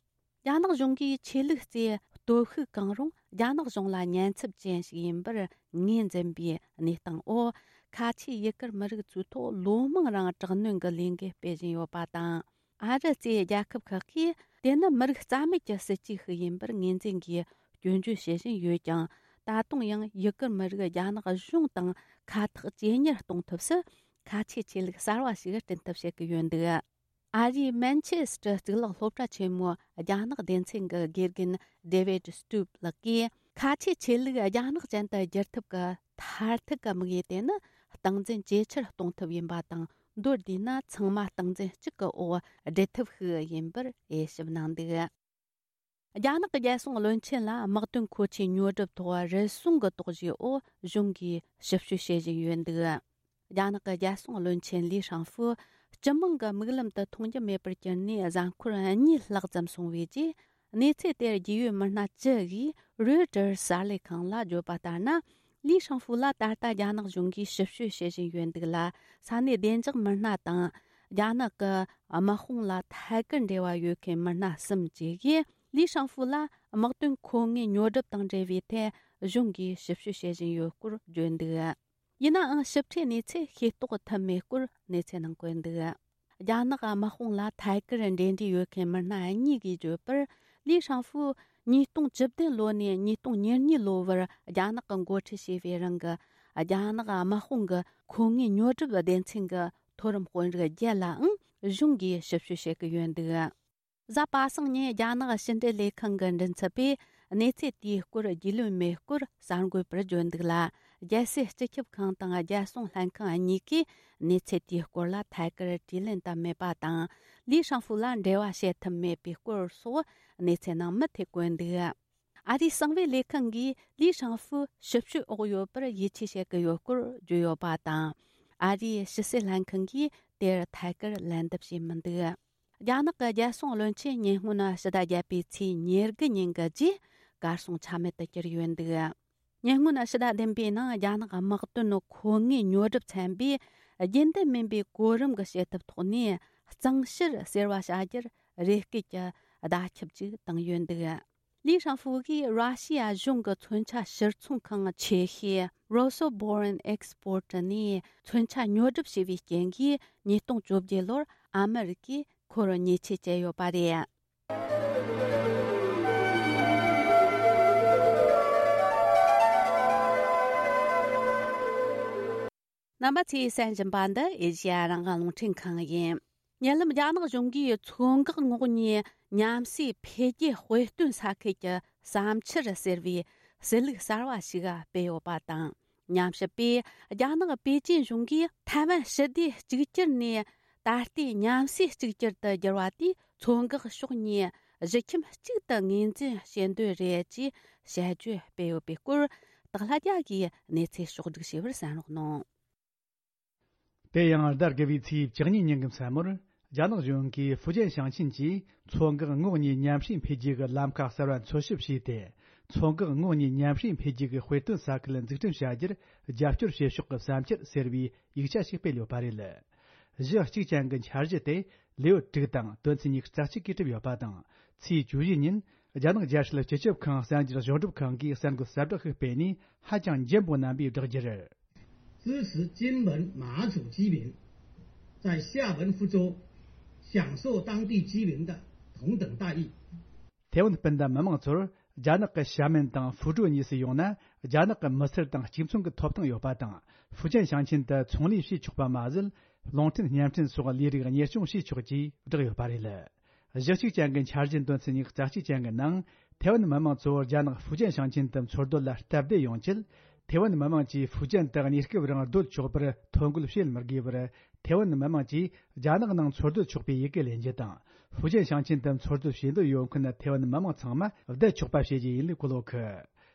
རྒྱ་ནག་གཞུང་གིས་ཆོས་ལུགས་རྩིས་སྟོབས་ཤུགས་གང་རུང་རྒྱ་ནག་གཞུང་ལ་ཉེན་ཚབས་ཅན་ཞིག་ཡིན་པར་ངོས་འཛིན་པའི་གནས་སྟངས་འོག། ཁ་ཆེའི་ཡུ་གུར་མི་རིགས་ཚོའི་ཐོག་ལོ་མང་རིང་དྲག་གནོན་གྱི་ལས་འགུལ་སྤེལ་བཞིན་ཡོད་པ་དང་། ཨ་རི་གཙོས་རྒྱལ་ཁབ་ཁག་གིས། དེ་ནི་མི་རིགས་རྩ་མེད་ཀྱི་སྲིད་ཇུས་ཤིག་ཡིན་པར་ངོས་འཛིན་གྱིས་སྐྱོན་བརྗོད་བྱེད་བཞིན་ཡོད་ཀྱང་། ད་དུང་ཡང་ཡུ་གུར་མི་རིགས་རྒྱ་ནག་གཞུང་དང་ཁ་ཐག་ཇེ་ཉེར་གཏོང་ཐབས་སུ། ཁ་ཆེའི་ཆོས་ལུགས་གསར་བ་ཞིག་སྐྲུན་ཐབས་བྱེད་ཀྱི་ཡོད་འདུག། ཨ་རིའི་མན་ཆེ་སི་ཊར་གཙུག་ལག་སློབ་གྲྭ་ཆེན་མོའི་རྒྱ་ནག་སྡེ་ཚན་གྱི་དགེ་རྒན་David Stoop ལགས་ཀྱིས། ཁ་ཆེའི་ཆོས་ལུགས་རྒྱ་ནག་ཅན་དུ་བསྒྱུར་ཐབས་ཀྱི་མཐར་ཐུག་གི་དམིགས་ཡུལ་དེ་ནི། སྟངས་འཛིན་ཇེ་ཆེར་གཏོང་ཐབས་ཡིན་པ་དང་། མདོར་བསྡུས་ན། ཚང་མ་སྟངས་འཛིན་གཅིག་གི་འོག་སྒྲིལ་ཐབས་ཤིག་ཡིན་པར་དབྱེ་ཞིབ་གནང་འདུག། རྒྱ་ནག་གི་རྒྱལ་སྲུང་བློན་ཆེན་ལ་དམག་དོན་མཁོ་ཆས་ཉོ་སྒྲུབ་ཐོག་རུལ་སུངས་ཀྱི་དོགས་གཞིའི་འོག་གཞུང་གིས་ཞིབ་དཔྱོད་བྱེད་བཞིན་ཡོད་འདུག། རྒྱ་ནག་གི་རྒྱལ་སྲུང་བློན་ཆེན་ལི་ཧྲང་ཧྥུ་སྤྱི་དམངས་ཀྱི་མིག་ལམ་དུ་མཐོང་རྒྱུ་མེད་པར་གྱུར་ནས་གཟའ་འཁོར་གཉིས་ལྷག་ཙམ་སོང་བའི་རྗེས། གནས་ཚུལ་དེར་རྒྱུས་ཡོད་མི་སྣ་བཅུ་ཡིས་Reuters གསར་ལས་ཁང་ལ་བརྗོད་པ་ལྟར་ན། ལི་ཧྲང་ཧྥུ་ལ་ད་ལྟ་རྒྱ་ནག་གཞུང་གིས་ཞིབ་དཔྱོད་བྱེད་བཞིན་ཡོད་འདུག་ལ། ས་གནས་བདེ་འཇགས་མི་སྣ་དང་། རྒྱ་ནག་གི་དམག་དཔུང་ལ་ཐད་ཀར་འབྲེལ་བ་ཡོད་མཁན་མི་སྣ་གསུམ་བཅས་ཀྱིས། ལི་ཧྲང་ཧྥུ་ལ་དམག་དོན་མཁོ་དངོས་ཉོ་སྒྲུབ་དང་འབྲེལ་བའི་ཐད་གཞུང་གིས་ཞིབ་དཔྱོད་བྱེད་བཞིན་ཡོད་སྐོར་བརྗོད་འདུག། ཡིན་ནའང་། ཞིབ་ཕྲའི་གནས་ཚུལ་ཤེས་རྟོགས་ཐུབ་མེད་སྐོར་གནས་ཚུལ་ནང་བཀོད་འདུག། རྒྱ་ནག་དམག་དཔུང་ལ་ཐད་ཀར་འབྲེལ་འདྲིས་ཡོད་མཁན་མི་སྣ་གཉིས་ཀྱིས་བརྗོད་པར། ལི་ཧྲང་ཧྥུ་ཉིས་སྟོང་བཅུ་བདུན་ལོ་ནས་ཉིས་སྟོང་ཉེར་གཉིས་ལོ་བར་རྒྱ་ནག་གིས་འགོ་ཁྲིད་བྱས་པའི་རིང་གི་རྒྱ་ནག་དམག་དཔུང་གི་མཁོ་དངོས་ཉོ་སྒྲུབ་སྡེ་ཚན་གྱི་མཐོ་རིམ་དཔོན་རིགས་བརྒྱད་ལའང་གཞུང་གིས་ཞིབ་དཔྱོད་བྱེད་ཀྱི་ཡོད་འདུག། གཟའ་པ་སངས་ཉིན་རྒྱ་ནག་ཕྱི་འབྲེལ་ལས་ཁང་གི་མགྲིན་ཚབ་པས་གནས་ཚུལ་དེའི་སྐོར་རྒྱུས་ལོན་མེད་སྐོར་གསར་འགོད་པར་བརྗོད་འདུག་ལ། རྒྱལ་སྲིད་སྤྱི་ཁྱབ་ཁང་དང་རྒྱལ་སྲུང་ལྷན་ཁང་གཉིས་ཀས་གནས་ཚུལ་དེའི་སྐོར་ལ་ཐད་ཀར་དྲིས་ལན་བཏབ་མེད་པ་དང་། ལི་ཧྲང་ཧྥུ་ལ་འབྲེལ་བ་བྱེད་ཐུབ་མེད་པའི་སྐོར་སོགས་གནས་ཚུལ་ནང་མུ་མཐུད་བཀོད་འདུག། ཨ་རིའི་གསང་བའི་ལས་ཁང་གིས་ལི་ཧྲང་ཧྥུ་ཞིབ་དཔྱོད་འོག་ཡོད་པར་ཡིད་ཆེས་བྱེད་ཀྱི་ཡོད་སྐོར་བརྗོད་ཡོད་པ་དང་། ཨ་རིའི་ཕྱི་སྲིད་ལྷན་ཁང་གིས་དེར་ཐད་ཀར་ལན་འདེབས་བྱས་མི་འདུག། རྒྱ་ནག་གི་རྒྱལ་སྲུང་བློན་ཆེན་ཉེ་སྔོན་ཕྱི་ཟླ་བརྒྱད་པའི་ཚེས་ཉེར་དགུ་ཉིན་གྱི་རྗེས་གར་སོང་ཆ་མེད་དུ་གྱུར་ཡོད་འདུག། ཉེ་སྔོན་ཕྱི་ཟླ་བདུན་པའི་ནང་རྒྱ་ནག་དམག་དོན་མཁོ་དངོས་ཉོ་སྒྲུབ་ཚན་པས་རྒྱུན་ལྡན་མིན་པའི་གོ་རིམ་གྱི་བྱེད་ཐབས་ཐོག་ནས་གཙང་བཤེར་ཟེར་བ་བྱ་རྒྱུར་རེ་སྐུལ་གྱི་བརྡ་ཁྱབ་ཅིག་བཏང་ཡོད་འདུག། ལི་ཧྲང་ཧྥུ་གིས་ར་ཤི་ཡ་གཞུང་གི་མཚོན་ཆ་ཕྱིར་ཚོང་ཁང་ཆེ་ཤོས་Rosoboron Export ནས་མཚོན་ཆ་ཉོ་སྒྲུབ་བྱས་པའི་རྐྱེན་གྱིས་ཉིས་སྟོང་བཅོ་བརྒྱད་ལོར་ཨ་མི་རི་ཀས་ཁོར་ཉེས་ཆད་བཅད་ཡོད་པ་རེད། རྣམ་པ་ཚོས་གསན་བཞིན་པ་འདི་ཨེ་ཤེ་ཡ་རང་དབང་རླུང་འཕྲིན་ཁང་ཡིན། ཉེ་ལམ་རྒྱ་ནག་གཞུང་གིས་མཚོ་འགག་ངོགས་གཉིས་མཉམ་ཟས་འཕེལ་རྒྱས་དཔེ་སྟོན་ས་ཁུལ་གྱི་བསམ་འཆར་ཟེར་བའི་གསལ་ལུགས་གསར་བ་ཞིག་སྤེལ་ཡོད་པ་དང་། ཉམས་ཞིབ་པས་རྒྱ་ནག་པེ་ཅིན་གཞུང་གིས་ཐའེ་ཝན་ཞི་བདེ་གཅིག་གྱུར་ནས་ད་ལྟའི་མཉམ་ཟས་གཅིག་གྱུར་དུ་འགྱུར་བ་དེས་མཚོ་འགག་ཕྱོགས་གཉིས་གཞིས་ཁྱིམ་གཅིག་ཏུ་ངོས་འཛིན་བྱེད་འདོད་རེད་ཅེས་དཔྱད་བརྗོད་སྤེལ་ཡོད་པའི་སྐོར། སྟག་ལྷ་རྒྱལ་གྱིས་གནས་ཚུལ་ཕྱོགས་བསྒྲིགས་བྱས་པར་གསན་རོགས་གནང་། དེ་ཡང་ཟླ་དགུ་བའི་ཚེས་བཅུ་གཉིས་ཉིན་གྱི་མཚན་མོར། རྒྱ་ནག་གཞུང་གིས་ཧྥུ་ཅན་ཞིང་ཆེན་གྱིས་མཚོ་འགག་ངོགས་གཉིས་མཉམ་ཞུགས་འཕེལ་རྒྱས་ཀྱི་ལམ་ཁ་གསར་བ་འཚོལ་ཞིབ་བྱས་ཏེ། མཚོ་འགག་ངོགས་གཉིས་མཉམ་ཞུགས་འཕེལ་རྒྱས་ཀྱི་དཔེ་སྟོན་ས་ཁུལ་འཛུགས་སྐྲུན་བྱ་རྒྱུར་རྒྱབ་སྐྱོར་བྱེད་ཕྱོགས་ཀྱི་བསམ་འཆར་ཟེར་བའི་ཡིག་ཆ་ཞིག་སྤེལ་ཡོད་པ་རེད། གཞི་གཅིག་ཅན་གྱི་འཆར་གཞི་དེ་ལེའུ་དྲུག་དང་དོན་ཚན་ཉི་ཤུ་རྩ་གཅིག་གིས་གྲུབ་ཡོད་པ་དང་། ཚེས་བཅུ་བཞི་ཉིན། རྒྱ་ནག་རྒྱལ་སྲིད་སྤྱི་ཁྱབ་ཁང་གསར་འགྱུར་ཞིབ་སྒྲུབ་ཁང་གིས་གསར་འགོད་གསལ་བསྒྲགས་ཤིག་སྤེལ་ནས་ཧ་ཅང་འཇམ་པོ་རྣམ་པས་བསྒྲགས་རྒྱུར། 支持金门马祖居民在廈门福州享受当地居民的同等待遇。 ཐེ་ཝན་སྤུན་ཟླ་མི་མང་ཚོར་རྒྱ་ནག་གི་ཤ་མེན་དང་ཧྥུ་ཀྲོའུ་གཉིས་སུ་ཡོང་ན། རྒྱ་ནག་གི་མི་སེར་དང་གཅིག་མཚུངས་ཀྱི་ཐོབ་ཐང་ཡོད་པ་དང་། ཧྥུ་ཅན་ཞིང་ཆེན་དུ་ཚོང་ལས་བྱེད་ཆོག་པ་མ་ཟད། རླུང་འཕྲིན་བརྙན་འཕྲིན་སོགས་ལས་རིགས་གཉེར་སྐྱོང་བྱེད་ཆོག་ཅེས་བསྒྲགས་ཡོད་པ་རེད། གཞི་གཅིག་ཅན་གྱི་འཆར་གཞིའི་དོན་ཚན་ཉི་ཤུ་རྩ་གཅིག་ཅན་གྱི་ནང་། ཐེ་ཝན་མི་མང་ཚོ་རྒྱ་ནག་ཧྥུ་ཅན་ཞིང་ཆེན་དུ་འཚོ་སྡོད་ལ་སྟབས་བདེ་ཡོང་ཆེད། ཐེ་ཝན་མི་མང་གིས་ཧྥུ་ཅན་དུ་གནས་སྐབས་རིང་སྡོད་ཆོག་པར་ཐོ་འགོད་བྱེད་མི་དགོས་པར། ཐེ་ཝན་མི་མང་གིས་རྒྱ་ནག་ནང་འཚོ་སྡོད་ཆོག་པའི་ཡི་གེ་ལེན་རྒྱུ་དང་། ཧྥུ་ཅན་ཞིང་ཆེན་དུ་འཚོ་སྡོད་བྱེད་འདོད་ཡོད་མཁན་ཐེ་ཝན་མི་མང་ཚང་མ་བསྡད་ཆོག་པ་བྱེད་རྒྱུ་ཡིན་ལུགས་གོ་ལོག་གི།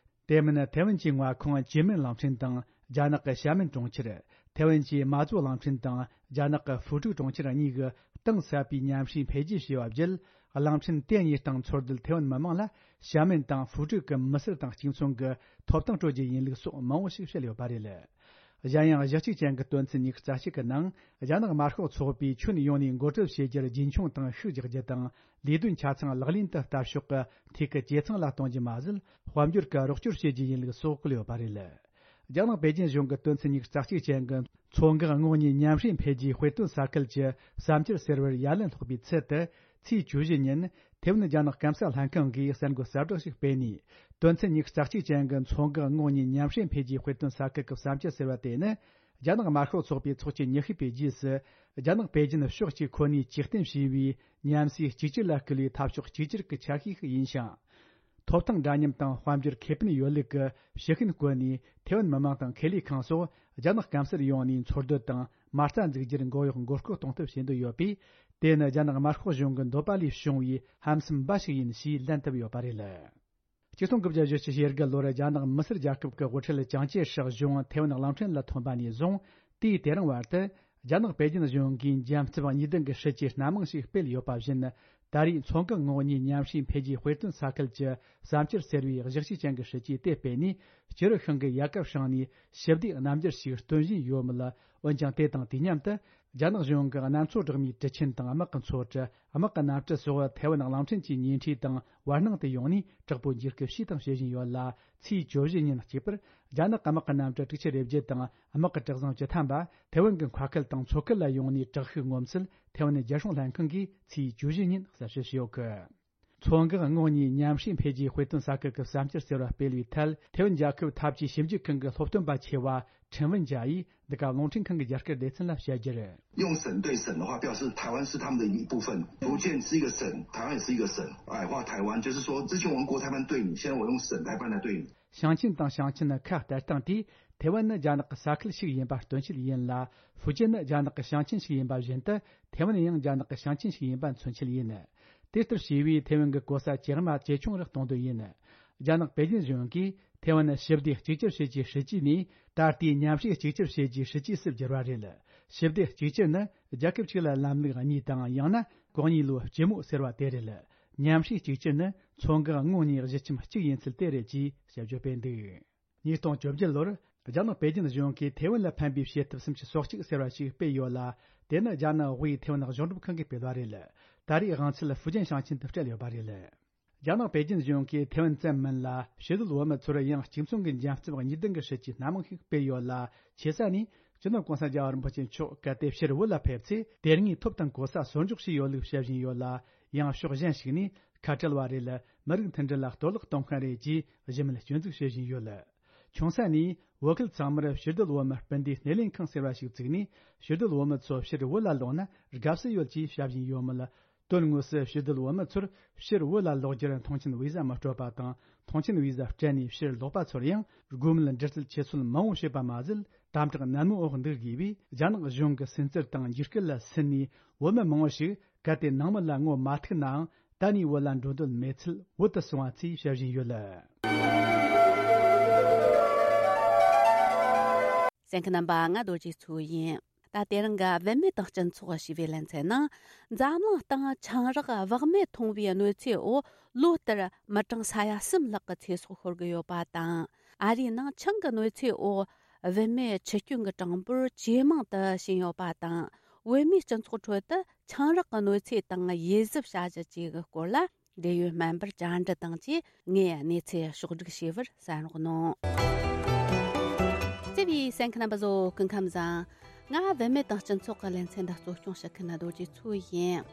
དེ་མིན་ཐེ་ཝན་གྱི་མངའ་ཁོངས་ཅིན་མིན་གླིང་ཕྲན་དང་རྒྱ་ནག་གི་ཤ་མིན་གྲོང་ཁྱེར། ཐེ་ཝན་གྱི་མ་ཙོ་གླིང་ཕྲན་དང་རྒྱ་ནག་གི་ཧྥུ་ཀྲུའུ་གྲོང་ཁྱེར་གཉིས་ཀྱི་གཏིང་ཟབ་པའི་མཉམ་ཞུགས་འཕེལ་རྒྱས་བྱས་པ་བརྒྱུད། གླིང་ཕྲན་དེ་གཉིས་སྟེང་འཚོ་སྡོད་ཐེ་ཝན་མི་མང་ལ་ཤ་མིན་དང་ཧྥུ་ཀྲུའུ་གི་མི་སེར་དང་གཅིག་མཚུངས་ཀྱི་ཐོབ་ཐང་སྤྲོད་རྒྱུ་ཡིན་ལུགས་སོགས་མང་བོ་ཞིག་བཤད་ཡོད་པ་རེད། གཞན་ཡང་གཞི་གཅིག་ཅན་གྱི་དོན་ཚན་ཉི་ཤུ་རྩ་གཅིག་གི་ནང་། རྒྱ་ནག་དམར་ཤོག་ཚོགས་པས་ཁྱོན་ཡོངས་ནས་འགོ་ཁྲིད་བྱེད་རྒྱུར་རྒྱུན་འཁྱོངས་དང་ཤུགས་རྒྱག་རྒྱུ་དང་། ལས་དོན་ཆ་ཚང་ལག་ལེན་དུ་བསྟར་ཕྱོགས་ཀྱི་ཐད་ཀྱི་ཇེ་ཚང་ལ་གཏོང་རྒྱུ་མ་ཟད། དཔལ་འབྱོར་གྱི་རོགས་སྐྱོར་བྱེད་རྒྱུ་ཡིན་ལུགས་སོགས་བཀོད་ཡོད་པ་རེད། རྒྱ་ནག་པེ་ཅིན་གཞུང་གི་དོན་ཚན་ཉི་ཤུ་རྩ་གཅིག་ཅན་གྱི་མཚོ་འགག་ངོགས་གཉིས་མཉམ་ཞུགས་འཕེལ་རྒྱས་དཔེ་སྟོན་ས་ཁུལ་གྱི་བསམ་འཆར་ཟེར་བར་ཡ་ལན་སློག་པའི་ཚུལ་དུ། ཚེས་བཅུ་བཞི་ཉིན། ཐེ་ཝན་རྒྱ་ནག་སྐམ་ས་ལྷན་ཁང་གིས་གསར་འགོད་གསལ་བསྒྲགས་ཤིག་སྤེལ་ནས། དོན་ཚན་ཉི་ཤུ་རྩ་གཅིག་ཅན་གྱི་མཚོ་འགག་ངོགས་གཉིས་མཉམ་ཞུགས་འཕེལ་རྒྱས་དཔེ་སྟོན་ས་ཁུལ་གྱི་བསམ་འཆར་ཟེར་བ་དེ་ནི། རྒྱ་ནག་དམར་ཤོག་ཚོགས་པའི་ཚོགས་ཆེན་ཉི་ཤུ་པའི་རྗེས་སུ། རྒྱ་ནག་པེ་ཅིན་ཕྱོགས་གཅིག་ཁོ་ནས་ཇུས་གཏན་བྱས་པའི་མཉམ་ཟས་གཅིག་གྱུར་ལ་བསྐུལ་བའི་འཐབ་ཕྱོགས་གཅིག་གྱུར་གྱི་ཆ་ཤས་ཤིག་ཡིན་ཞིང་། ཐོབ་ཐང་འདྲ་མཉམ་དང་དཔལ་འབྱོར་ཁེ་ཕན་ཡོད་ལུགས་ཀྱི་ཕྱི་ཤུན་བཀོད་ནས། ཐེ་ཝན་མི་མང་དང་ཁེ་ལས་ཁང་སོགས་རྒྱ་ནག་སྐམ་སར་ཡོང་ནས་འཚོ་སྡོད་དང་མ་རྩ་འཛུགས་རྒྱུར་མགོ་གཡོག་མགོ་སྐོར་གཏོང་ཐབས་བྱེད་འདོད་ཡོད་པས། དེ་ནི་རྒྱ་ནག་དམར་ཤོག་གཞུང་གི་འདོད་པ་ལས་བྱུང་བའི་ཧམ་སེམས་འབའ་ཞིག་ཡིན་ཞེས་ལན་བཏབ་ཡོད་པ་རེད། ཆིག་སྟོང་དགུ་བརྒྱ་བཞི་བཅུ་ཞེ་དགུ་ལོར་རྒྱ་ནག་མི་སེར་རྒྱལ་ཁབ་ཀྱི་དབུ་ཁྲིད་ཅང་ཅེ་ཧྲག་གཞུང་ཐེ་ཝན་གླིང་ཕྲན་ལ་ཐོན་པ་ནས་བཟུང་། དུས་དེ་རིང་བར་དུ། རྒྱ་ནག་པེ་ཅིན་གཞུང་གིས་འཇམ་རྩུབ་གཉིས་ལྡན་གྱི་སྲིད་ཇུས་སྣ་མང་ཞིག་སྤེལ་ཡོད་པ་བཞིན། ད་རེས་མཚོ་འགག་ངོགས་གཉིས་མཉམ་ཞུགས་འཕེལ་རྒྱས་དཔེ་སྟོན་ས་ཁུལ་གྱི་བསམ་འཆར་ཟེར་བའི་གཞི་གཅིག་ཅན་གྱི་སྲིད་ཇུས་དེ་སྤེལ་ནས། སྤྱི་རུ་ཤིང་གི་ཡལ་ག་བསྲིངས་ནས་ཞི་བདེའི་རྣམ་འགྱུར་ཞིག་སྟོན་བཞིན་ཡོད་མོད། འོན་ཀྱང་། དེ་དང་དུས་མཉམ་དུ། རྒྱ་ནག་གཞུང་གི་གནམ་མཚོ་སྦྲགས་མའི་གྲུ་ཆེན་དང་དམག་གི་མཚོ་གྲུ། དམག་གི་གནམ་གྲུ་སོགས་ཐེ་ཝན་གླིང་ཕྲན་གྱི་ཉེ་འཁྲིས་དང་བར་སྣང་དུ་ཡོང་ནས་དྲག་པོའི་འཇིགས་སྐུལ་བྱས་དང་བྱེད་བཞིན་ཡོད་ལ། ཚེས་བཅུ་བཞི་ཉིན་གཅིག་པར། རྒྱ་ནག་དམག་གི་གནམ་གྲུ་དྲུག་ཅུ་རེ་བརྒྱད་དང་དམག་གི་གྲུ་གཟིངས་བཅུ་ཐམ་པ། ཐེ་ཝན་གྱི་མཁར་ཁུལ་དང་མཚོ་ཁུལ་ལ་ཡོང་ནས་དྲག་ཤུགས་ངོམ་ཚུལ། ཐེ་ཝན་རྒྱལ་སྲུང་ལྷན་ཁང་གིས་ཚེས་བཅུ་བཞི་ཉིན་གསལ་བཤད་བྱས་ཡོད་གི། མཚོ་འགག་ངོགས་གཉིས་མཉམ་ཞུགས་འཕེལ་རྒྱས་དཔེ་སྟོན་ས་ཁུལ་གྱི་བསམ་འཆར་ཟེར་བ་སྤེལ་བའི་ཐད། ཐེ་ཝན་རྒྱལ་ཁབ་འཐབ་ཇུས་ཞིབ་འཇུག་ཁང་གི་སློབ་སྟོན་པ་ཆེ་བ་ཁྲིན་ཝུན་ཇཱ་ཡིས་འདི་ག་རླུང་འཕྲིན་ཁང་གི་རྒྱ་སྐད་སྡེ་ཚན་ལ་བཤད་རྒྱུར། 用省对省的话，表示台湾是他们的一部分，福建是一个省，台湾也是一个省。矮化台湾，就是说，之前我用国台办对你，现在我用省台办来对你。 ཞིང་ཆེན་དང་ཞིང་ཆེན་ཁ་བསྟན་སྟངས་དེས། ཐེ་ཝན་ནི་རྒྱ་ནག་གི་ས་ཁུལ་ཞིག་ཡིན་པ་སྟོན་ཆེད་ཡིན་ལ། ཧྥུ་ཅན་ནི་རྒྱ་ནག་གི་ཞིང་ཆེན་ཞིག་ཡིན་པ་བཞིན་དུ། ཐེ་ཝན་ཡང་རྒྱ་ནག་གི་ཞིང་ཆེན་ཞིག་ཡིན་པ་མཚོན་ཆེད་ཡིན། དེ་ལྟར་བྱས་པས་ཐེ་ཝན་གྱི་གོ་ས་ཇེ་དམའ་ཇེ་ཆུང་རུ་གཏོང་འདོད་ཡིན། རྒྱ་ནག་པེ་ཅིན་གཞུང་གིས་ཐེ་ཝན་ཞི་བདེ་གཅིག་གྱུར་བྱེད་རྒྱུའི་སྲིད་ཇུས་ནས། ད་ལྟའི་མཉམ་ཞུགས་གཅིག་གྱུར་བྱེད་རྒྱུའི་སྲིད་ཇུས་སུ་བསྒྱུར་བ་རེད། ཞི་བདེ་གཅིག་གྱུར་ནི། རྒྱལ་ཁབ་གཅིག་ལ་ལམ་ལུགས་གཉིས་དང་། ཡང་ན་གོ་གཉིས་ལོའི་སྤྱི་མོ་ཟེར་བ་དེ་རེད། མཉམ་ཞུགས་གཅིག་གྱུར་ནི་མཚོ་འགག་ངོགས་གཉིས་གཞིས་ཁྱིམ་གཅིག་ཡིན་ཚུལ་དེ་རེད་ཅེས་དཔྱད་བརྗོད་སྤེལ་འདུག། ཉིས་སྟོང་བཅོ་བརྒྱད་ལོར་རྒྱ་ནག་པེ་ཅིན་གཞུང་གིས་ཐེ་ཝན་ལ་ཕན་པའི་བྱེད་ཐབས་སུམ་ཅུ་སོ་གཅིག་ཟེར་བ་ཞིག་སྤེལ་ཡོད་ལ། དེ་ནི་རྒྱ་ནག་དབུས་ཐེ་ཝན་གཞུང་སྒྲུབ་ཁང་གིས་སྤེལ་བ་རེད། ད་རེས་དབང་ཚད་ཧྥུ་ཅན་ཞིང་ཆེན་དུ་སྤྲད་ཡོད་པ་རེད། རྒྱ་ནག་པེ་ཅིན་གཞུང་གིས་ཐེ་ཝན་ཙམ་མིན་ལ། ཕྱི་སྡོད་བོད་མི་ཚོར་ཡང་གཅིག་མཚུངས་ཀྱི་འཇམ་རྩུབ་གཉིས་ལྡན་གྱི་སྲིད་ཇུས་སྣ་མང་ཞིག་སྤེལ་ཡོད་ལ། ཆེ་ས་ནས་སྤྱི་ནོར་གོང་ས་རྒྱལ་བ་རིན་པོ་ཆེ་མཆོག་གལ་ཏེ་ཕྱིར་བོད་ལ་ཕེབས་ཚེ། དེ་སྔའི་ཐོབ་དང་གོ་ས་སོར་འཇོག་བྱས་ཡོད་ལུགས་བཤད་བཞིན་ཡོད་ལ། ཡང་ཕྱོགས་གཞན་ཞིག་ནས་ཁ་བྲལ་བ་རེད། མི་རིགས་མཐུན་སྒྲིལ་ལ་གཏོར་བརླག་གཏོང་མཁན་རེད་ཅེས་གཞི་མེད་སྐྱོན་འཛུགས་བྱེད་བཞིན་ཡོད། ཆུང་ས་ནས་བོད་ཁུལ་ཚང་མར་ཕྱིར་སྡོད་བོད་མི་སྤུན་ཟླའི་སྣེ་ལེན་ཁང་ཟེར་བ་ཞིག་བཙུགས་ནས། ཕྱིར་སྡོད་བོད་མི་ཚོ་ཕྱིར་བོད་ལ་ལོག་ན་དགའ་བསུ་ཡོད་ཅེས་བྱ་བཞིན་ཡོད་མོད། དོན་དངོས་སུ་ཕྱིར་སྡོད་བོད་མི་ཚོར་ཕྱིར་བོད་ལ་ལོག་རྒྱུར་མཐོང་མཆན་བི་ཟ་མི་སྤྲོད་པ་དང་། མཐོང་མཆན་བི་ཟ་སྤྲད་ནས་ཕྱིར་ལོག་པ་ཚོར་ཡང་། དགོས་མེད་འདྲི་རྩད་ཆེ་ཚུལ་མང་བོ་བྱེད་པ་མ་ཟད། དམ་དྲག་ནན་མོའི་འོག་འདུག་དགོས་པས། རྒྱ་ནག་གཞུང་གི་སུན་གཙེར་དང་འཇིགས་སྐུལ་ལ་སུན་ནས། བོད་མི་མང་བོ་ཞིག་གལ་ཏེ་ནང་མི་ལ་ངོ་མ་ཐུག་ནའང་། ད་ནས་བོད་ལ་འགྲོ་འདོད་མེད་ཚུལ་བོད་དུ་སོང་བ་ཚོས་བཤད་བཞིན་ཡོད། གསན་མཁན་རྣམ་པ། ང་རྡོ་རྗེ་མཚོ་ཡིན། ད་དེ་རིང་གི་བུད་མེད་དང་སྤྱི་ཚོགས་ཞེས་པའི་ལེ་ཚན་ནང་། འཛམ་གླིང་སྟེང་ཆང་རག་བག་མེད་འཐུང་བའི་གནོད་འཚེའི་འོག་ལོ་ལྟར་མི་གྲངས་ས་ཡ་གསུམ་ལྷག་གི་ཚེ་སྲོག་ཤོར་གི་ཡོད་པ་དང་། ཨ་རིའི་ནང་ཆང་གི་གནོད་འཚེའི་འོག་བུད་མེད་འཆི་སྐྱོན་གྱི་གྲངས་འབོར་ཇེ་མང་དུ་ཕྱིན་ཡོད་པ་དང་། བོད་མིའི་སྤྱི་ཚོགས་ཁྲོད་དུ་ཆང་རག་གི་གནོད་འཚེ་དང་ཡིད་གཟབ་བྱ་གཞི་བཅས་ཀྱི་སྐོར་ལ། འབྲེལ་ཡོད་སྨན་པར་བཅར་འདྲི་དང་བཅས། ངས་གནས་ཚུལ་ཕྱོགས་བསྒྲིགས་བྱས་པར་གསན་རོགས་གནང་། བརྩེ་བའི་གསན་མཁན་རྣམ་པ་ཚོ། སྐུ་ཁམས་བཟང་། ང་བུད་མེད་དང་སྤྱི་ཚོགས་ཀྱི་ལེ་ཚན་འདི་གཙོ་སྐྱོང་བྱེད་མཁན་རྡོ་རྗེ་མཚོ་ཡིན།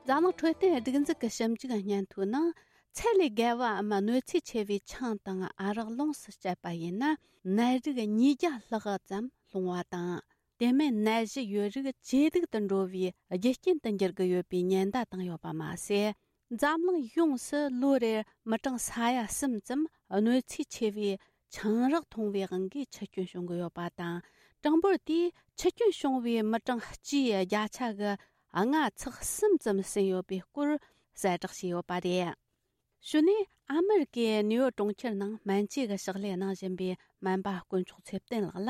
འཛམ་གླིང་འཕྲོད་བསྟེན་སྒྲིག་འཛུགས་ཀྱི་ཞིབ་འཇུག་སྙན་ཐོའི་ནང་། ཚད་ལས་བརྒལ་བའམ་གནོད་འཚེ་ཆེ་བའི་ཆང་དང་ཨ་རག་ལོངས་སུ་སྤྱད་པ་ཡིན་ན། ནད་རིགས་ཉིས་བརྒྱ་ལྷག་ཙམ་སློང་བ་དང་། དེ་མིན་ནད་གཞི་ཡོད་རིགས་ཇེ་སྡུག་ཏུ་འགྲོ་བའི་རྒྱུ་རྐྱེན་དུ་འགྱུར་གྱི་ཡོད་པའི་ཉེན་བརྡ་བཏང་ཡོད་པ་མ་ཟད། འཛམ་གླིང་ཡོངས་སུ་ལོ་རེར་མི་གྲངས་ས་ཡ་གསུམ་ཙམ་གནོད་འཚེ་ཆེ་བའི་ཆང་རག་འཐུང་བའི་དབང་གིས་འཆི་སྐྱོན་བྱུང་གི་ཡོད་པ་དང་། གྲངས་འབོར་དེས་འཆི་སྐྱོན་བྱུང་བའི་མི་གྲངས་སྤྱིའི་བརྒྱ་ཆ་གི་ལྔ་ཚེག་གསུམ་ཙམ་ཟིན་ཡོད་པའི་སྐོར་གསལ་བསྒྲགས་བྱས་ཡོད་པ་རེད། གཞུག་ནས་ཨ་མི་རི་ཀའི་ནིའུ་ཡོག་གྲོང་ཁྱེར་ནང་སྨན་བཅོས་ཀྱི་ཕྱག་ལས་གནང་བཞིན་པའི་སྨན་པ་དཀོན་མཆོག་ཚེ་བརྟན་ལགས་ལ་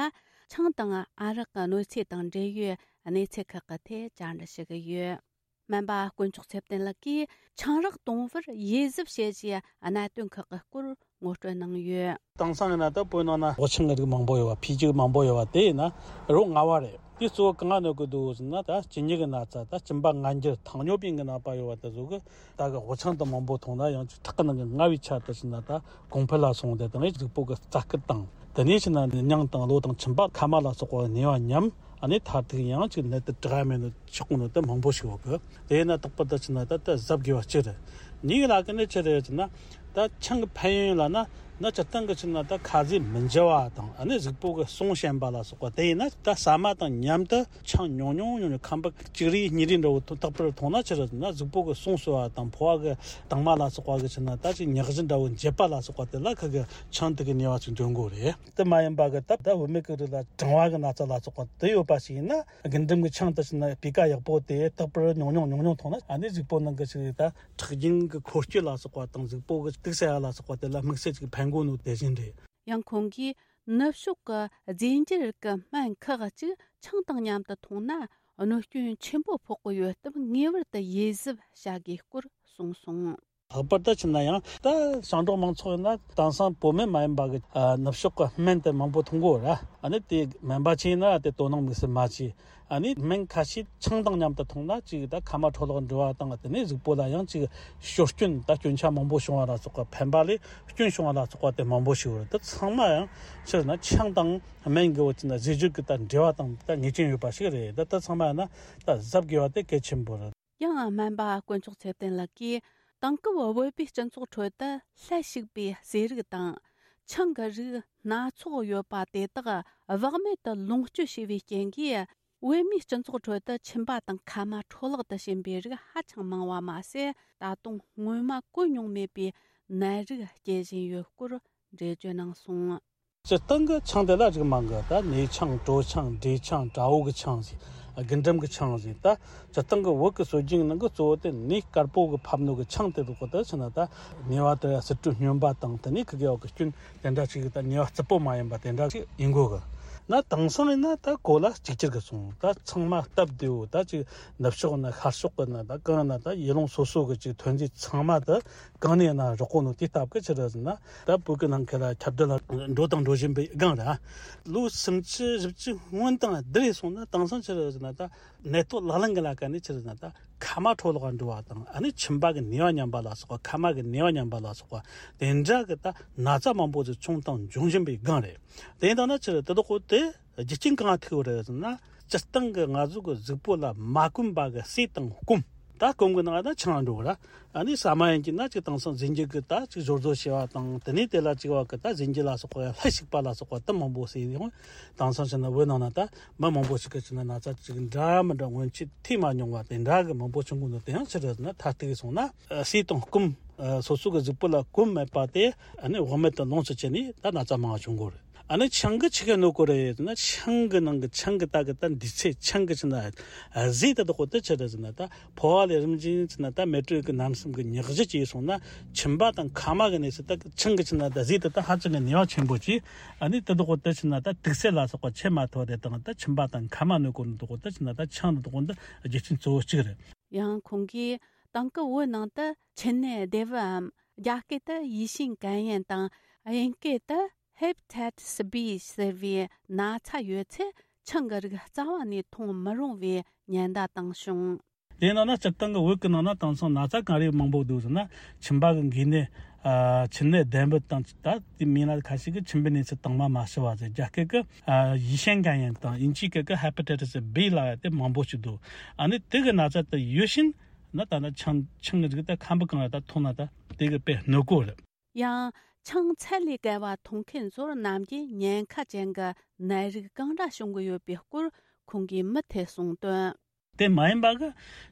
ཆང་དང་ཨ་རག་གི་གནོད་འཚེ་དང་འབྲེལ་ཡོད་གནས་ཚུལ་ཁག་གི་ཐད་བཅར་འདྲི་ཞུ་གི་ཡོད། སྨན་པ་དཀོན་མཆོག་ཚེ་བརྟན་ལགས་ཀྱིས་ཆང་རག་གཏོང་བར་ཡིད་གཟབ་བྱེད་ཅེས་གནད་དོན་ཁག་གི་སྐོར་ངོ་སྤྲོད་གནང་ཡོད། དེང་སང་ཡིན་ན་ད་བོད་ནང་ན་སྦོ་ཆང་གི་རིགས་མང་པོ་ཡོད་པ། ཕིའུ་ཅི་མང་པོ་ཡོད་པ་དེ་ཡིན་ན་རོ་ལྔ་བ་རེད། དེ་གཙོ་བོ་གང་གནོད་ཀྱི་འདུག་ཟེར་ན། ད་གཅིན་སྙི་གི་ན་ཚ། ད་གཅིན་པ་ངར་འགྱུར།糖尿病གི་ནད་པ་ཡོད་པ་དེ་ཚོ་གི་ད་གི་སྦོ་ཆང་དེ་མང་པོ་འཐུང་ན་ཡང་ཅིག་ཁྲག་གི་ནང་གི་མངར་བའི་ཆ་དེ་ཟེར་ན་ད་གོང་འཕེལ་ལ་སོང་སྟེ། དང་གཟུགས་པོ་གི་རྩ་སྐུད་དང་། དེ་ནས་ཕྱིན་ན་སྙིང་དང་གློ་དང་མཆིན་པ་མཁལ་མ་ལ་སོགས་པ་ནད་པ་ཉམས། ཨ་ནི་མཐར་ཐུག་ཡང་ཅིག་ནད་དེ་དྲག་མེད་ནོ་ཆགས་ནོ་དེ་མང་པོ་ཞིག་ཡོད་གི། དེ་ཡིན་ན་རྟག་པར་ད་ཕྱིན་ན་ད་ད་གཟབ་དགོས་པ་ཅི་རེད། གཉིས་ལ་གི་ནི་ཅི་རེད་ཟེར་ན། ད་ཆང་གི་ཕན་ཡོན་ལ་ན་ན་སྤྱིར་བཏང་གི་ཕྱིན་ན་ད་ཁ་ཟས་མི་འཇུ་བ་དང་། ཨ་ནི་གཟུགས་པོ་གི་ཟུངས་ཞན་པ་ལ་སོགས་པ། དེ་ཡིན་ན་ད་ཟ་མ་དང་མཉམ་དུ་ཆང་ཉུང་ཉུང་ཉུང་ཉུང་ཁམ་བུ་གཅིག་རེ་གཉིས་རེ་འདྲ་བོ་རྟག་པར་འཐུང་ན་ཅི་རེད་ཟེར་ན། གཟུགས་པོ་གི་ཟུངས་གསོ་བ་དང་། ཕོ་བ་གི་དྭངས་མ་ལ་སོགས་པ་གི་ཕྱིན་ན་ད་ཅིག་མྱག་གཞི་འདྲ་བོ་འབྱེད་པ་ལ་སོགས་པ་དེ་ལ་ཁ་གི་ཆང་དེ་གི་ནུས་པ་ཅིག་འདོན་དགོས་རེད། དེ་མ་ཡིན་པ་གི་ད་ད་བུད་མེད་ཀྱི་རིགས་ལ་གྲང་བ་གི་ན་ཚ་ལ་སོགས་པ་དེ་ཡོད་པ་ཞིག་ཡིན་ན། རྒུན་འབྲུམ་གྱི་ཆང་དེ་ཕྱིན་ན་སྤུས་ཀ་ཡག་པོ་དེ་རྟག་པར་ཉུང་ཉུང་ཉུང་ཉུང་འཐུང་ན། ཨ་ནི་གཟུགས་པོ་ནང་གི་ཅིག་ད་ཁྲག་རྒྱུན་གྱི་འཁོར་སྐྱོད་ལ་སོགས་པ་དང་། གཟུགས་པོ་གི་དུག་སེལ་ཡ་ལ་སོགས་པ་དེ་ལ་དམིགས་བསལ་ཅིག་ཕན་གོ་ནོ་དེ་བཞིན་རེད། ཡང་ཁོང་གིས་ནུབ་ཕྱོགས་ཀྱི་རྫས་འགྱུར་གྱི་སྨན་ཁག་ཅིག་ཆང་དང་མཉམ་དུ་འཐུང་ན་གནོད་སྐྱོན་ཆེན་པོ་ཕོག་གི་ཡོད་སྟབས། ངེས་པར་དུ་ཡིད་གཟབ་བྱ་དགོས་སྐོར་གསུངས་སོང་། ལྷག་པར་དུ་ཕྱིན་ན་ཡང་ད་ཞིང་འབྲོག་མང་ཚོགས་ཡིན་ན་དེང་སང་བོད་སྨན་མ་ཡིན་པ་གི་ཨ་ནུབ་ཕྱོགས་ཀྱི་སྨན་དེ་མང་པོ་འཐུང་གི་ཡོད་ར། ཨ་ནི་དེ་སྨན་པ་ཅིག་ཡིན་ན་དེ་དོ་སྣང་དམིགས་བསལ་མ་བྱས། ཨ་ནི་སྨན་ཁ་ཤས་ཆང་དང་མཉམ་དུ་འཐུང་ན་ཅིག་ད་མཁལ་མ་འཕྲོ་བརླག་འགྲོ་བ་དང་། དེ་ནས་གཟུགས་པོ་ལ་ཡང་ཅིག་སྐྱོན་སྐྱོན་ད་སྐྱོན་ཆ་མང་པོ་བྱུང་བ་ལ་སོགས་པ། ཕན་པ་ལས་སྐྱོན་བྱུང་བ་ལ་སོགས་པ་དེ་མང་པོ་ཞིག་ཡོད་རེད། དེ་ཚང་མ་ཡང་ཕྱིར་ན་ཆང་དང་སྨན་གྱི་བོད་ཀྱི་ན་ཟས་སྤྱོད་ཀྱི་ད་འབྲེལ་བ་དང་ད་ངེས་ཅན་ཡོད་པ་ཞིག་རེད། ད་ད་ཚང་མ་ཡང་ན་ད་གཟབ་དགོས་པ་དེ་གལ་ཆེན་པོ་རེད། ཡང་སྨན་པ་དཀོན་མཆོག་ཚེ་བརྟན་ལགས་ཀྱིས། དེང་སྐབས་བོད་པའི་སྤྱི་ཚོགས་ཁྲོད་དུ་ལྷད་ཞུགས་པའི་ཟས་རིགས་དང་། ཆང་གི་རིགས་སྣ་ཚོགས་ཡོད་པ་དེ་དག་བག་མེད་དུ་ལོངས་སྤྱོད་བྱས་པའི་རྐྱེན་གྱིས། བོད་མིའི་སྤྱི་ཚོགས་ཁྲོད་དུ་མཆིན་པ་དང་མཁལ་མ་འཕྲོ་བརླག་ཏུ་ཕྱིན་པའི་རིགས་ཧ་ཅང་མང་བ་མ་ཟད། ད་དུང་སྔོན་མ་གོ་མྱོང་མེད་པའི་ནད་རིགས་སྐྱེ་བཞིན་ཡོད་སྐོར་འགྲེལ་བརྗོད་གནང་སོང་། སྤྱིར་བཏང་གི་ཆང་དེ་ལ་རིགས་མང་གི། ད་ནས་ཆང་། གྲོ་ཆང་། འབྲས་ཆང་། དགྲ་བོ་གི་ཆང་ཟེར། རྒུན་འབྲུམ་གི་ཆང་ཟེར། ད་སྤྱིར་བཏང་གི་བོད་ཀྱི་སྲོལ་རྒྱུན་ནང་གི་གཙོ་བོ་དེ་ནས་དཀར་པོ་གི་ཕབ་ནོ་གི་ཆང་དེ་རུ་གོ་དེ་ཕྱིན་ན། ད་ནས་པ་དེ་ཟུར་དྲུག་སྨྱོན་པ་དང་། དེ་ནས་ཁི་གེ་བ་གི་སྐྱོན་དེ་འདྲ་ཅིག་ད་ནས་པ་རྩུབ་པོ་མ་ཡིན་པ་དེ་འདྲ་ཅིག་ཡིན་དགོས་གི། ན་དེང་སང་ཡིན་ན་ད་གོ་ལ་གཅིག་གྱུར་གི་སོང་། ད་ཚང་མ་སྟབས་བདེ་བོ། ད་ཅིག་ནུབ་ཕྱོགས་ན་ཤར་ཕྱོགས་གི་ན། ད་གང་ན་ད་ཡུལ་ལུང་སོ་སོ་གི་ཅིག་ཐོན་རྫས་ཚང་མ་ད་གང་ནས་ན་རག་གོ་ནོ་དེ་སྟབས་གི་ཕྱིར་ཟེར་ན། ད་བོད་ཀྱི་ནང་ཁུལ་ལ་ཁྱབ་གདལ་ལ་འགྲོ་དང་འགྲོ་བཞིན་པའི་སྒང་ར། ལོ་སུམ་ཅུ་བཞི་བཅུ་སྔོན་དང་བསྡུར་སོང་ན། དེང་སང་ཕྱིར་ཟེར་ན་ད་ནད་ཐོག་ལག་ལེན་གི་ལ་ཀ་ནས་ཕྱིར་ཟེར་ན། ད་མཁལ་མ་འཕྲོ་བརླག་འགྲོ་བ་དང་། ཨ་ནི་མཆིན་པ་གི་ནུས་པ་ཉམས་པ་ལ་སོགས་པ། མཁལ་མ་གི་ནུས་པ་ཉམས་པ་ལ་སོགས་པ། དེ་འདྲ་གི་ད་ན་ཚ་མང་པོ་ཞིག་བྱུང་དང་འབྱུང་བཞིན་པའི་སྒང་རེད། དེ་ཡིན་ད་ན་ཕྱིར་དེ་དག་གོ་དེ་རྒྱུ་རྐྱེན་གང་ཐུག་རེད་ཟེར་ན། སྤྱིར་བཏང་གི་ང་ཚོ་གི་གཟུགས་པོ་ལ་མ་གོན་པ་གི་ཟས་དང་སྐོམ། ད་སྐོམ་གི་ནང་ད་ཆང་འགྲོ་ར། ཨ་ནི་ཟ་མ་ཡིན་གྱི་ན་ཅིག་དེང་སང་རྫས་འགྱུར་གི་ད་ཅིག་སྦྱོར་བཟོ་བྱས་པ་དང་། དེ་ནས་དེ་ལ་ཅིག་བ་གི་ད་རྫས་འགྱུར་ལ་སོགས་པ་ལྷད་ཞིག་པ་ལ་སོགས་པ་ད་མང་པོ་ཟེར་ཡོང་། དེང་སང་ཕྱིན་ན་བོད་ནང་ན་ད་མི་མང་པོ་ཞིག་གི་ཕྱིན་ན་ན་ཚ་ཅིག་འདྲ་མི་འདྲ་སྔོན་ཆད་ཐོས་མ་མྱོང་བ་དེ་འདྲ་གི་མང་པོ་བྱུང་གི་འདུག་དེ་ཡང་ཕྱིར་ན་ད་ལྟ་གི་སོང་ན་ཟས་དང་སྐོམ། སོ་སོ་གི་གཟུགས་པོ་ལ་སྐོམ་མེད་པ་དེ་ཨ་ནི་བག་མེད་དུ་ལོངས་སུ་སྤྱད་ནས་ད་ན་ཚ་མང་བ་བྱུང་གི་རེད། ཨ་ནི་ཆང་གི་ཆི་ག་ནོ་གོ་རེད་ཟེར་ན། ཆང་གི་ནང་གི་ཆང་གི་ད་གི་ད་འདི་ཚེ་ཆང་གི་ཕྱིན་ན་ཟས་དེ་དག་གོ་དེ་ཆི་རེད་ཟེར་ན། ད་ཕོ་བ་ལས་རིམ་བཞིན་ཕྱིན་ན་ད་མེ་དྲོད་ཀྱི་རྣམ་གསུམ་གྱི་མྱག་གཞི་བྱས་སོང་ན། མཆིན་པ་དང་མཁལ་མ་གི་གནས་སུ་ད་ཆང་གི་ཕྱིན་ན་ད་ཟས་དེ་ད་ཧ་ཅང་གི་ནུས་པ་ཆེན་པོ་ཅིག་ཨ་ནི་དེ་དག་གོ་དེ་ཕྱིན་ན་ད་དུག་སེལ་ལ་སོགས་པ་ཆེ་མ་ཐོ་རེ་དང་། ད་མཆིན་པ་དང་མཁལ་མ་ནོ་གོ་ནོ་དག་གོ་དེ་ཕྱིན་ན་ད་ཆང་དེ་དག་གོ་ད་རྒྱུ་རྐྱེན་གཙོ་བོ་གཅིག་རེད། ཡང་ཁོང་གིས་དེང་སྐབས་བོད་ནང་དུ་མཆིན་ནད་བདེ་བའམ་རྒྱ་སྐད་དུ་ཡེ་ཤེས་གན་ཡན་དང་། དབྱིན་སྐད་དུ་Hepatitis B ཟེར་བའི་ན་ཚ་ཡོད་ཚེ་ཆང་གི་རིགས་རྩ་བ་ནས་འཐུང་མི་རུང་བའི་ཉེན་བརྡ་བཏང་བྱུང་། དེ་ནང་ན་སྤྱིར་བཏང་གི་བོད་ཀྱི་ནང་ན་དེང་སང་ན་ཚ་གང་རེ་མང་པོ་འདུག་ཟེར་ན། མཆིན་པ་གི་འགོས་ནད། ཨ་མཆིན་ནད་ལྡན་པ་དང་། ད་དེ་མིན་ན་ཁ་ཤས་ཀྱིས་མཆིན་པའི་གནས་ཚུལ་དྭངས་མ་མ་ཞི་བ་ཟེར། རྒྱ་སྐད་ཀྱི་ཨ་ཡེ་ཤེས་གན་ཡན་དང་དབྱིན་ཇིའི་སྐད་ཀྱི་Hepatitis B ལབ་ཡ་དེ་མང་པོ་ཞིག་འདུག་ཨ་ནི་དེ་གི་ན་ཚ་དེ་ཡོད་བཞིན་ན་ད་ན་ཆང་ཆང་གི་རིགས་དེ་ཁམ་བུ་གང་ལ་ད་འཐུང་ན་ད་དེ་གི་དཔེ་གནོད་གོ་རེད། ཡང་ཆང་ཚད་ལས་བརྒལ་བ་འཐུང་མཁན་ཚོར་ནམ་རྒྱུན་ཉེན་ཁ་ཅན་གྱི་ནད་རིགས་གང་འདྲ་བྱུང་གི་ཡོད་པའི་སྐོར་ཁོང་གིས་མུ་མཐུད་གསུངས་དོན། དེ་མ་ཡིན་པ་གི་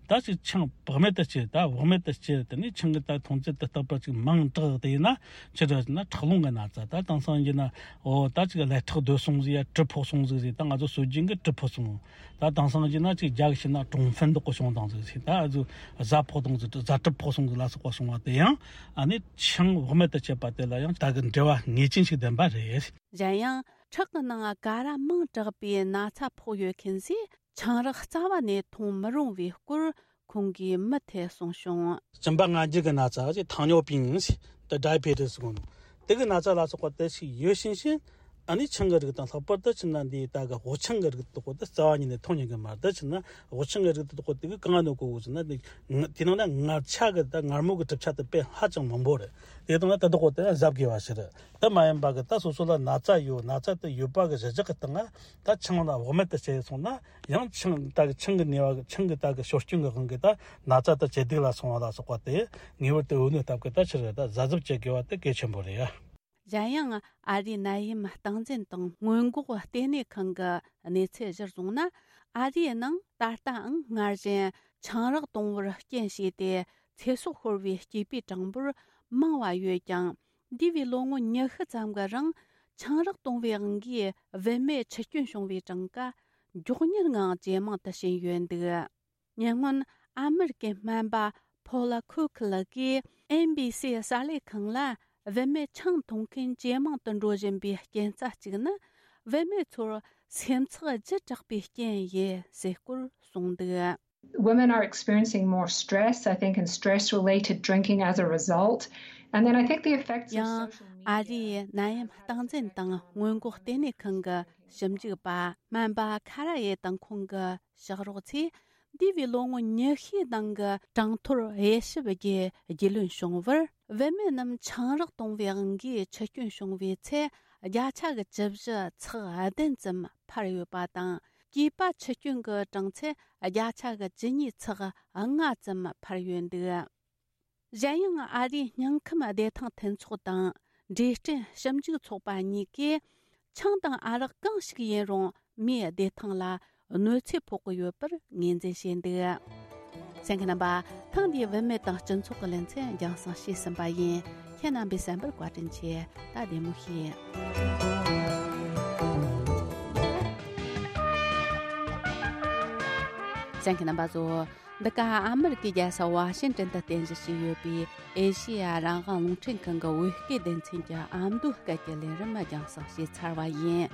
ད་ཅིག་ཆང་བག་མེད་དུ་སྤྱད། ད་བག་མེད་དུ་སྤྱད། དེ་ནས་ཆང་གི་ད་འཐུང་ཚད་དེ་རྟག་པར་ཅིག་མང་དྲགས་དེ་ཡིན་ན་ཆི་འདྲ་ཟེར་ན་ཁྲག་རླུང་གི་ན་ཚ། ད་དེང་སང་ཡིན་ན་འོ་ད་ཅིག་ཀླད་ཁྲག་རྡོལ་སོང་ཟིག་ཡ་གྲིབ་ཕོག་སོང་ཟིག་ཟེར། ད་ང་ཚོ་སྲོལ་རྒྱུན་གི་གྲིབ་ཕོག་སོང་། ད་དེང་སང་ཡིན་ན་ཅིག་རྒྱ་གི་ཕྱིན་ན་ཀྲུང་ཧྥན་དག་གི་བྱུང་དང་ཟིག་ཟེར། ད་ཨ་ཚོ་གཟའ་ཕོག་དང་ཟིག་གཟའ་གྲིབ་ཕོག་སོང་ཟིག་ལ་སོགས་པ་སོང་བ་དེ་ཡང་ཨ་ནི་ཆང་བག་མེད་དུ་སྤྱད་པ་དེ་ལ་ཡང་ད་གི་འབྲེལ་བ་ངེས་ཅན་ཞིག་ལྡན་པ་རེད། གཞན་ཡང་ཁྲག་གི་ནང་ཀ་ར་མང་དྲགས་པའི་ན་ཚ་ཕོག་ཡོད་མཁན་ཚོས་ཆང་རག་རྩ་བ་ནས་འཐུང་མི་རུང་བའི་སྐོར་ཁོང་གིས་མུ་མཐུད་གསུངས་བྱུང་། གཅིན་པ་ངར་འགྱུར་གྱི་ན་ཚ་ཅེས་糖尿病ཟེར། ད་diabetes ཟེར་གོ་ནོ། དེ་གི་ན་ཚ་ལ་སོགས་པ་དེ་ཞིག་ཡོད་བཞིན་བཞིན་ཨ་ནི་ཆང་གི་རིགས་དང་། ལྷག་པར་དུ་ཕྱིན་ན་འདི་ད་གི་སྦོ་ཆང་གི་རིགས་དག་གོ་དེ་རྩ་བ་ཉིད་ནས་འཐུང་ཉན་གི་མ་རེད། ད་ཕྱིན་ན་སྦོ་ཆང་གི་རིགས་དག་གོ་དེ་གི་གང་ནོ་གོ་གོ་ཟེར་ན། དེ་དེ་ནང་ན་མངར་ཆ་གི་ད་མངར་མོ་གི་གྲུབ་ཆ་དེ་དཔེ་ཧ་ཅང་མང་པོ་རེད། དེ་དང་ན་དེ་དག་གོ་དེ་གཟབ་དགོས་པ་ཞིག་རེད། དེ་མ་ཡིན་པ་གི་ད་སོ་སོ་ལ་ན་ཚ་ཡོད། ན་ཚ་དེ་ཡོད་པ་གི་གཞི་བཞག་གི་སྟེང་ང་ད་ཆང་ལ་བག་མེད་དུ་བྱས་སོང་ན། ཡང་ཆང་ད་གི་ཆང་གི་ནུས་པ་གི་ཆང་གི་ད་གི་ཤོར་སྐྱོན་གི་དབང་གིས་ད་ན་ཚ་དེ་ཇེ་སྡུག་ལ་སོང་བ་ལ་སོགས་པ་དེ་ངེས་པར་དུ་འོས་གནས་སྟབས་ཀྱིས་ད་ཕྱིར་ད་གཟབ་གཟབ་བྱེད་དགོས་པ་དེ་གལ་ཆེན་པོ་རེད་ཡ། གཞན་ཡང་ཨ་རིའི་ནད་ཡམས་སྟངས་འཛིན་དང་སྔོན་འགོག་ལྟེ་གནས་ཁང་གི་གནས་ཚུལ་གཞིར་བཟུང་ན། ཨ་རིའི་ནང་ད་ལྟའང་སྔར་བཞིན་ཆང་རག་གཏོང་བར་རྐྱེན་བྱས་ཏེ་ཚེ་སྲོག་ཤོར་བའི་སྐྱེས་པའི་གྲངས་འབོར་མང་བ་ཡོད་ཀྱང་། འདས་པའི་ལོ་ངོ་ཉི་ཤུ་ཙམ་གྱི་རིང་ཆང་རག་གཏོང་བའི་དབང་གིས་བུད་མེད་འཆི་སྐྱོན་བྱུང་བའི་གྲངས་ཀ་མགྱོགས་མྱུར་ངང་ཇེ་མང་དུ་ཕྱིན་ཡོད་འདུག་ཉེ་སྔོན་ཨ་མེ་རི་ཀའི་སྨན་པ་ཕོ་ལ་ཁུ་ཁི་ལགས་ཀྱིས་ཨེན་བི་སི་གསར་ལས་ཁང་ལ། བུད་མེད་ཆང་འཐུང་མཁན་ཇེ་མང་དུ་འགྲོ་བཞིན་པའི་རྐྱེན་རྩ་གཅིག་ནི། བུད་མེད་ཚོར་སེམས་ཚེགས་ལྗིད་དྲགས་པའི་རྐྱེན་ཡིན་ཟེར་སྐོར་གསུངས་འདུག Women are experiencing more stress, I think, and stress related drinking as a result. And then I think the effects of ཡང་། social media ཨ་རིའི་ནད་ཡམས་སྟངས་འཛིན་དང་སྔོན་འགོག་ལྟེ་གནས་ཁང་གི་ཞིབ་འཇུག་པ་སྨན་པ་ཁ་ར་ཡེ་དང་ཁོང་གི་ཕྱག་རོགས་ཚོས། འདས་པའི་ལོ་ངོ་ཉི་ཤུའི་ནང་གི་གྲངས་ཐོར་དབྱེ་ཞིབ་བརྒྱུད་རྒྱུས་ལོན་བྱུང་བར། བུད་མེད་རྣམས་ཆང་རག་གཏོང་བའི་དབང་གིས་འཆི་སྐྱོན་བྱུང་བའི་ཚད་བརྒྱ་ཆ་གི་བཅུ་བཞི་ཚེག་བདུན་ཙམ་འཕར་ཡོད་པ་དང་། སྐྱེས་པ་འཆི་སྐྱོན་གྱི་གྲངས་ཚད་བརྒྱ་ཆ་གི་བཅུ་གཉིས་ཚེག་ལྔ་ཙམ་འཕར་ཡོད་འདུག་གཞན་ཡང་ཨ་རིའི་སྙིང་ཁམས་བདེ་ཐང་མཐུན་ཚོགས་དང་འབྲས་སྐྲན་ཞིབ་འཇུག་ཚོགས་པ་གཉིས་ཀས། ཆང་དང་ཨ་རག་གང་ཞིག་ཡིན་རུང་མིའི་བདེ་ཐང་ལ་གནོད་འཚེ་ཕོག་གི་ཡོད་པར་ངོས་འཛིན་བྱས་འདུག་གསན་མཁན་རྣམ་པ། ཐེངས་འདིའི་བུད་མེད་དང་སྤྱི་ཚོགས་ཀྱི་ལེ་ཚན་རྒྱང་སྲིང་བྱས་ཟིན་པ་ཡིན། ཁྱེད་རྣམ་པས་གསན་པར་བཀའ་དྲིན་ཆེ། ད་བདེ་མོ་བྱོས། གསན་མཁན་རྣམ་པ་ཚོ། འདི་ག་ཨ་མེ་རི་ཀའི་རྒྱལ་ས་ཝ་ཤིང་ཏན་དུ་རྟེན་གཞི་བྱས་ཡོད་པའི་ཨེ་ཤེ་ཡ་རང་དབང་རླུང་འཕྲིན་ཁང་གི་བོད་སྐད་སྡེ་ཚན་གྱི་ཨ་མདོའི་སྐད་ཀྱི་ལས་རིམ་རྒྱང་སྲིང་བྱས་ཚར་བ་ཡིན།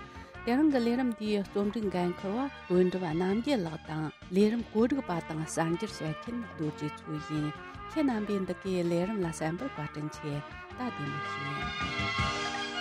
དེ་རིང་གི་ལས་རིམ་འདིའི་རྩོམ་སྒྲིག་འགན་འཁུར་བ་དོན་གྲུབ་རྣམ་རྒྱལ་ལགས་དང་། ལས་རིམ་གོ་སྒྲིག་པ་དང་གསར་འགྱུར་བཤད་མཁན་རྡོ་རྗེ་མཚོ་ཡིན། ཁྱེད་རྣམ་པས་འདི་གའི་ལས་རིམ་ལ་གསན་པར་བཀའ་དྲིན་ཆེ། ད་བདེ་མོ་བྱོས།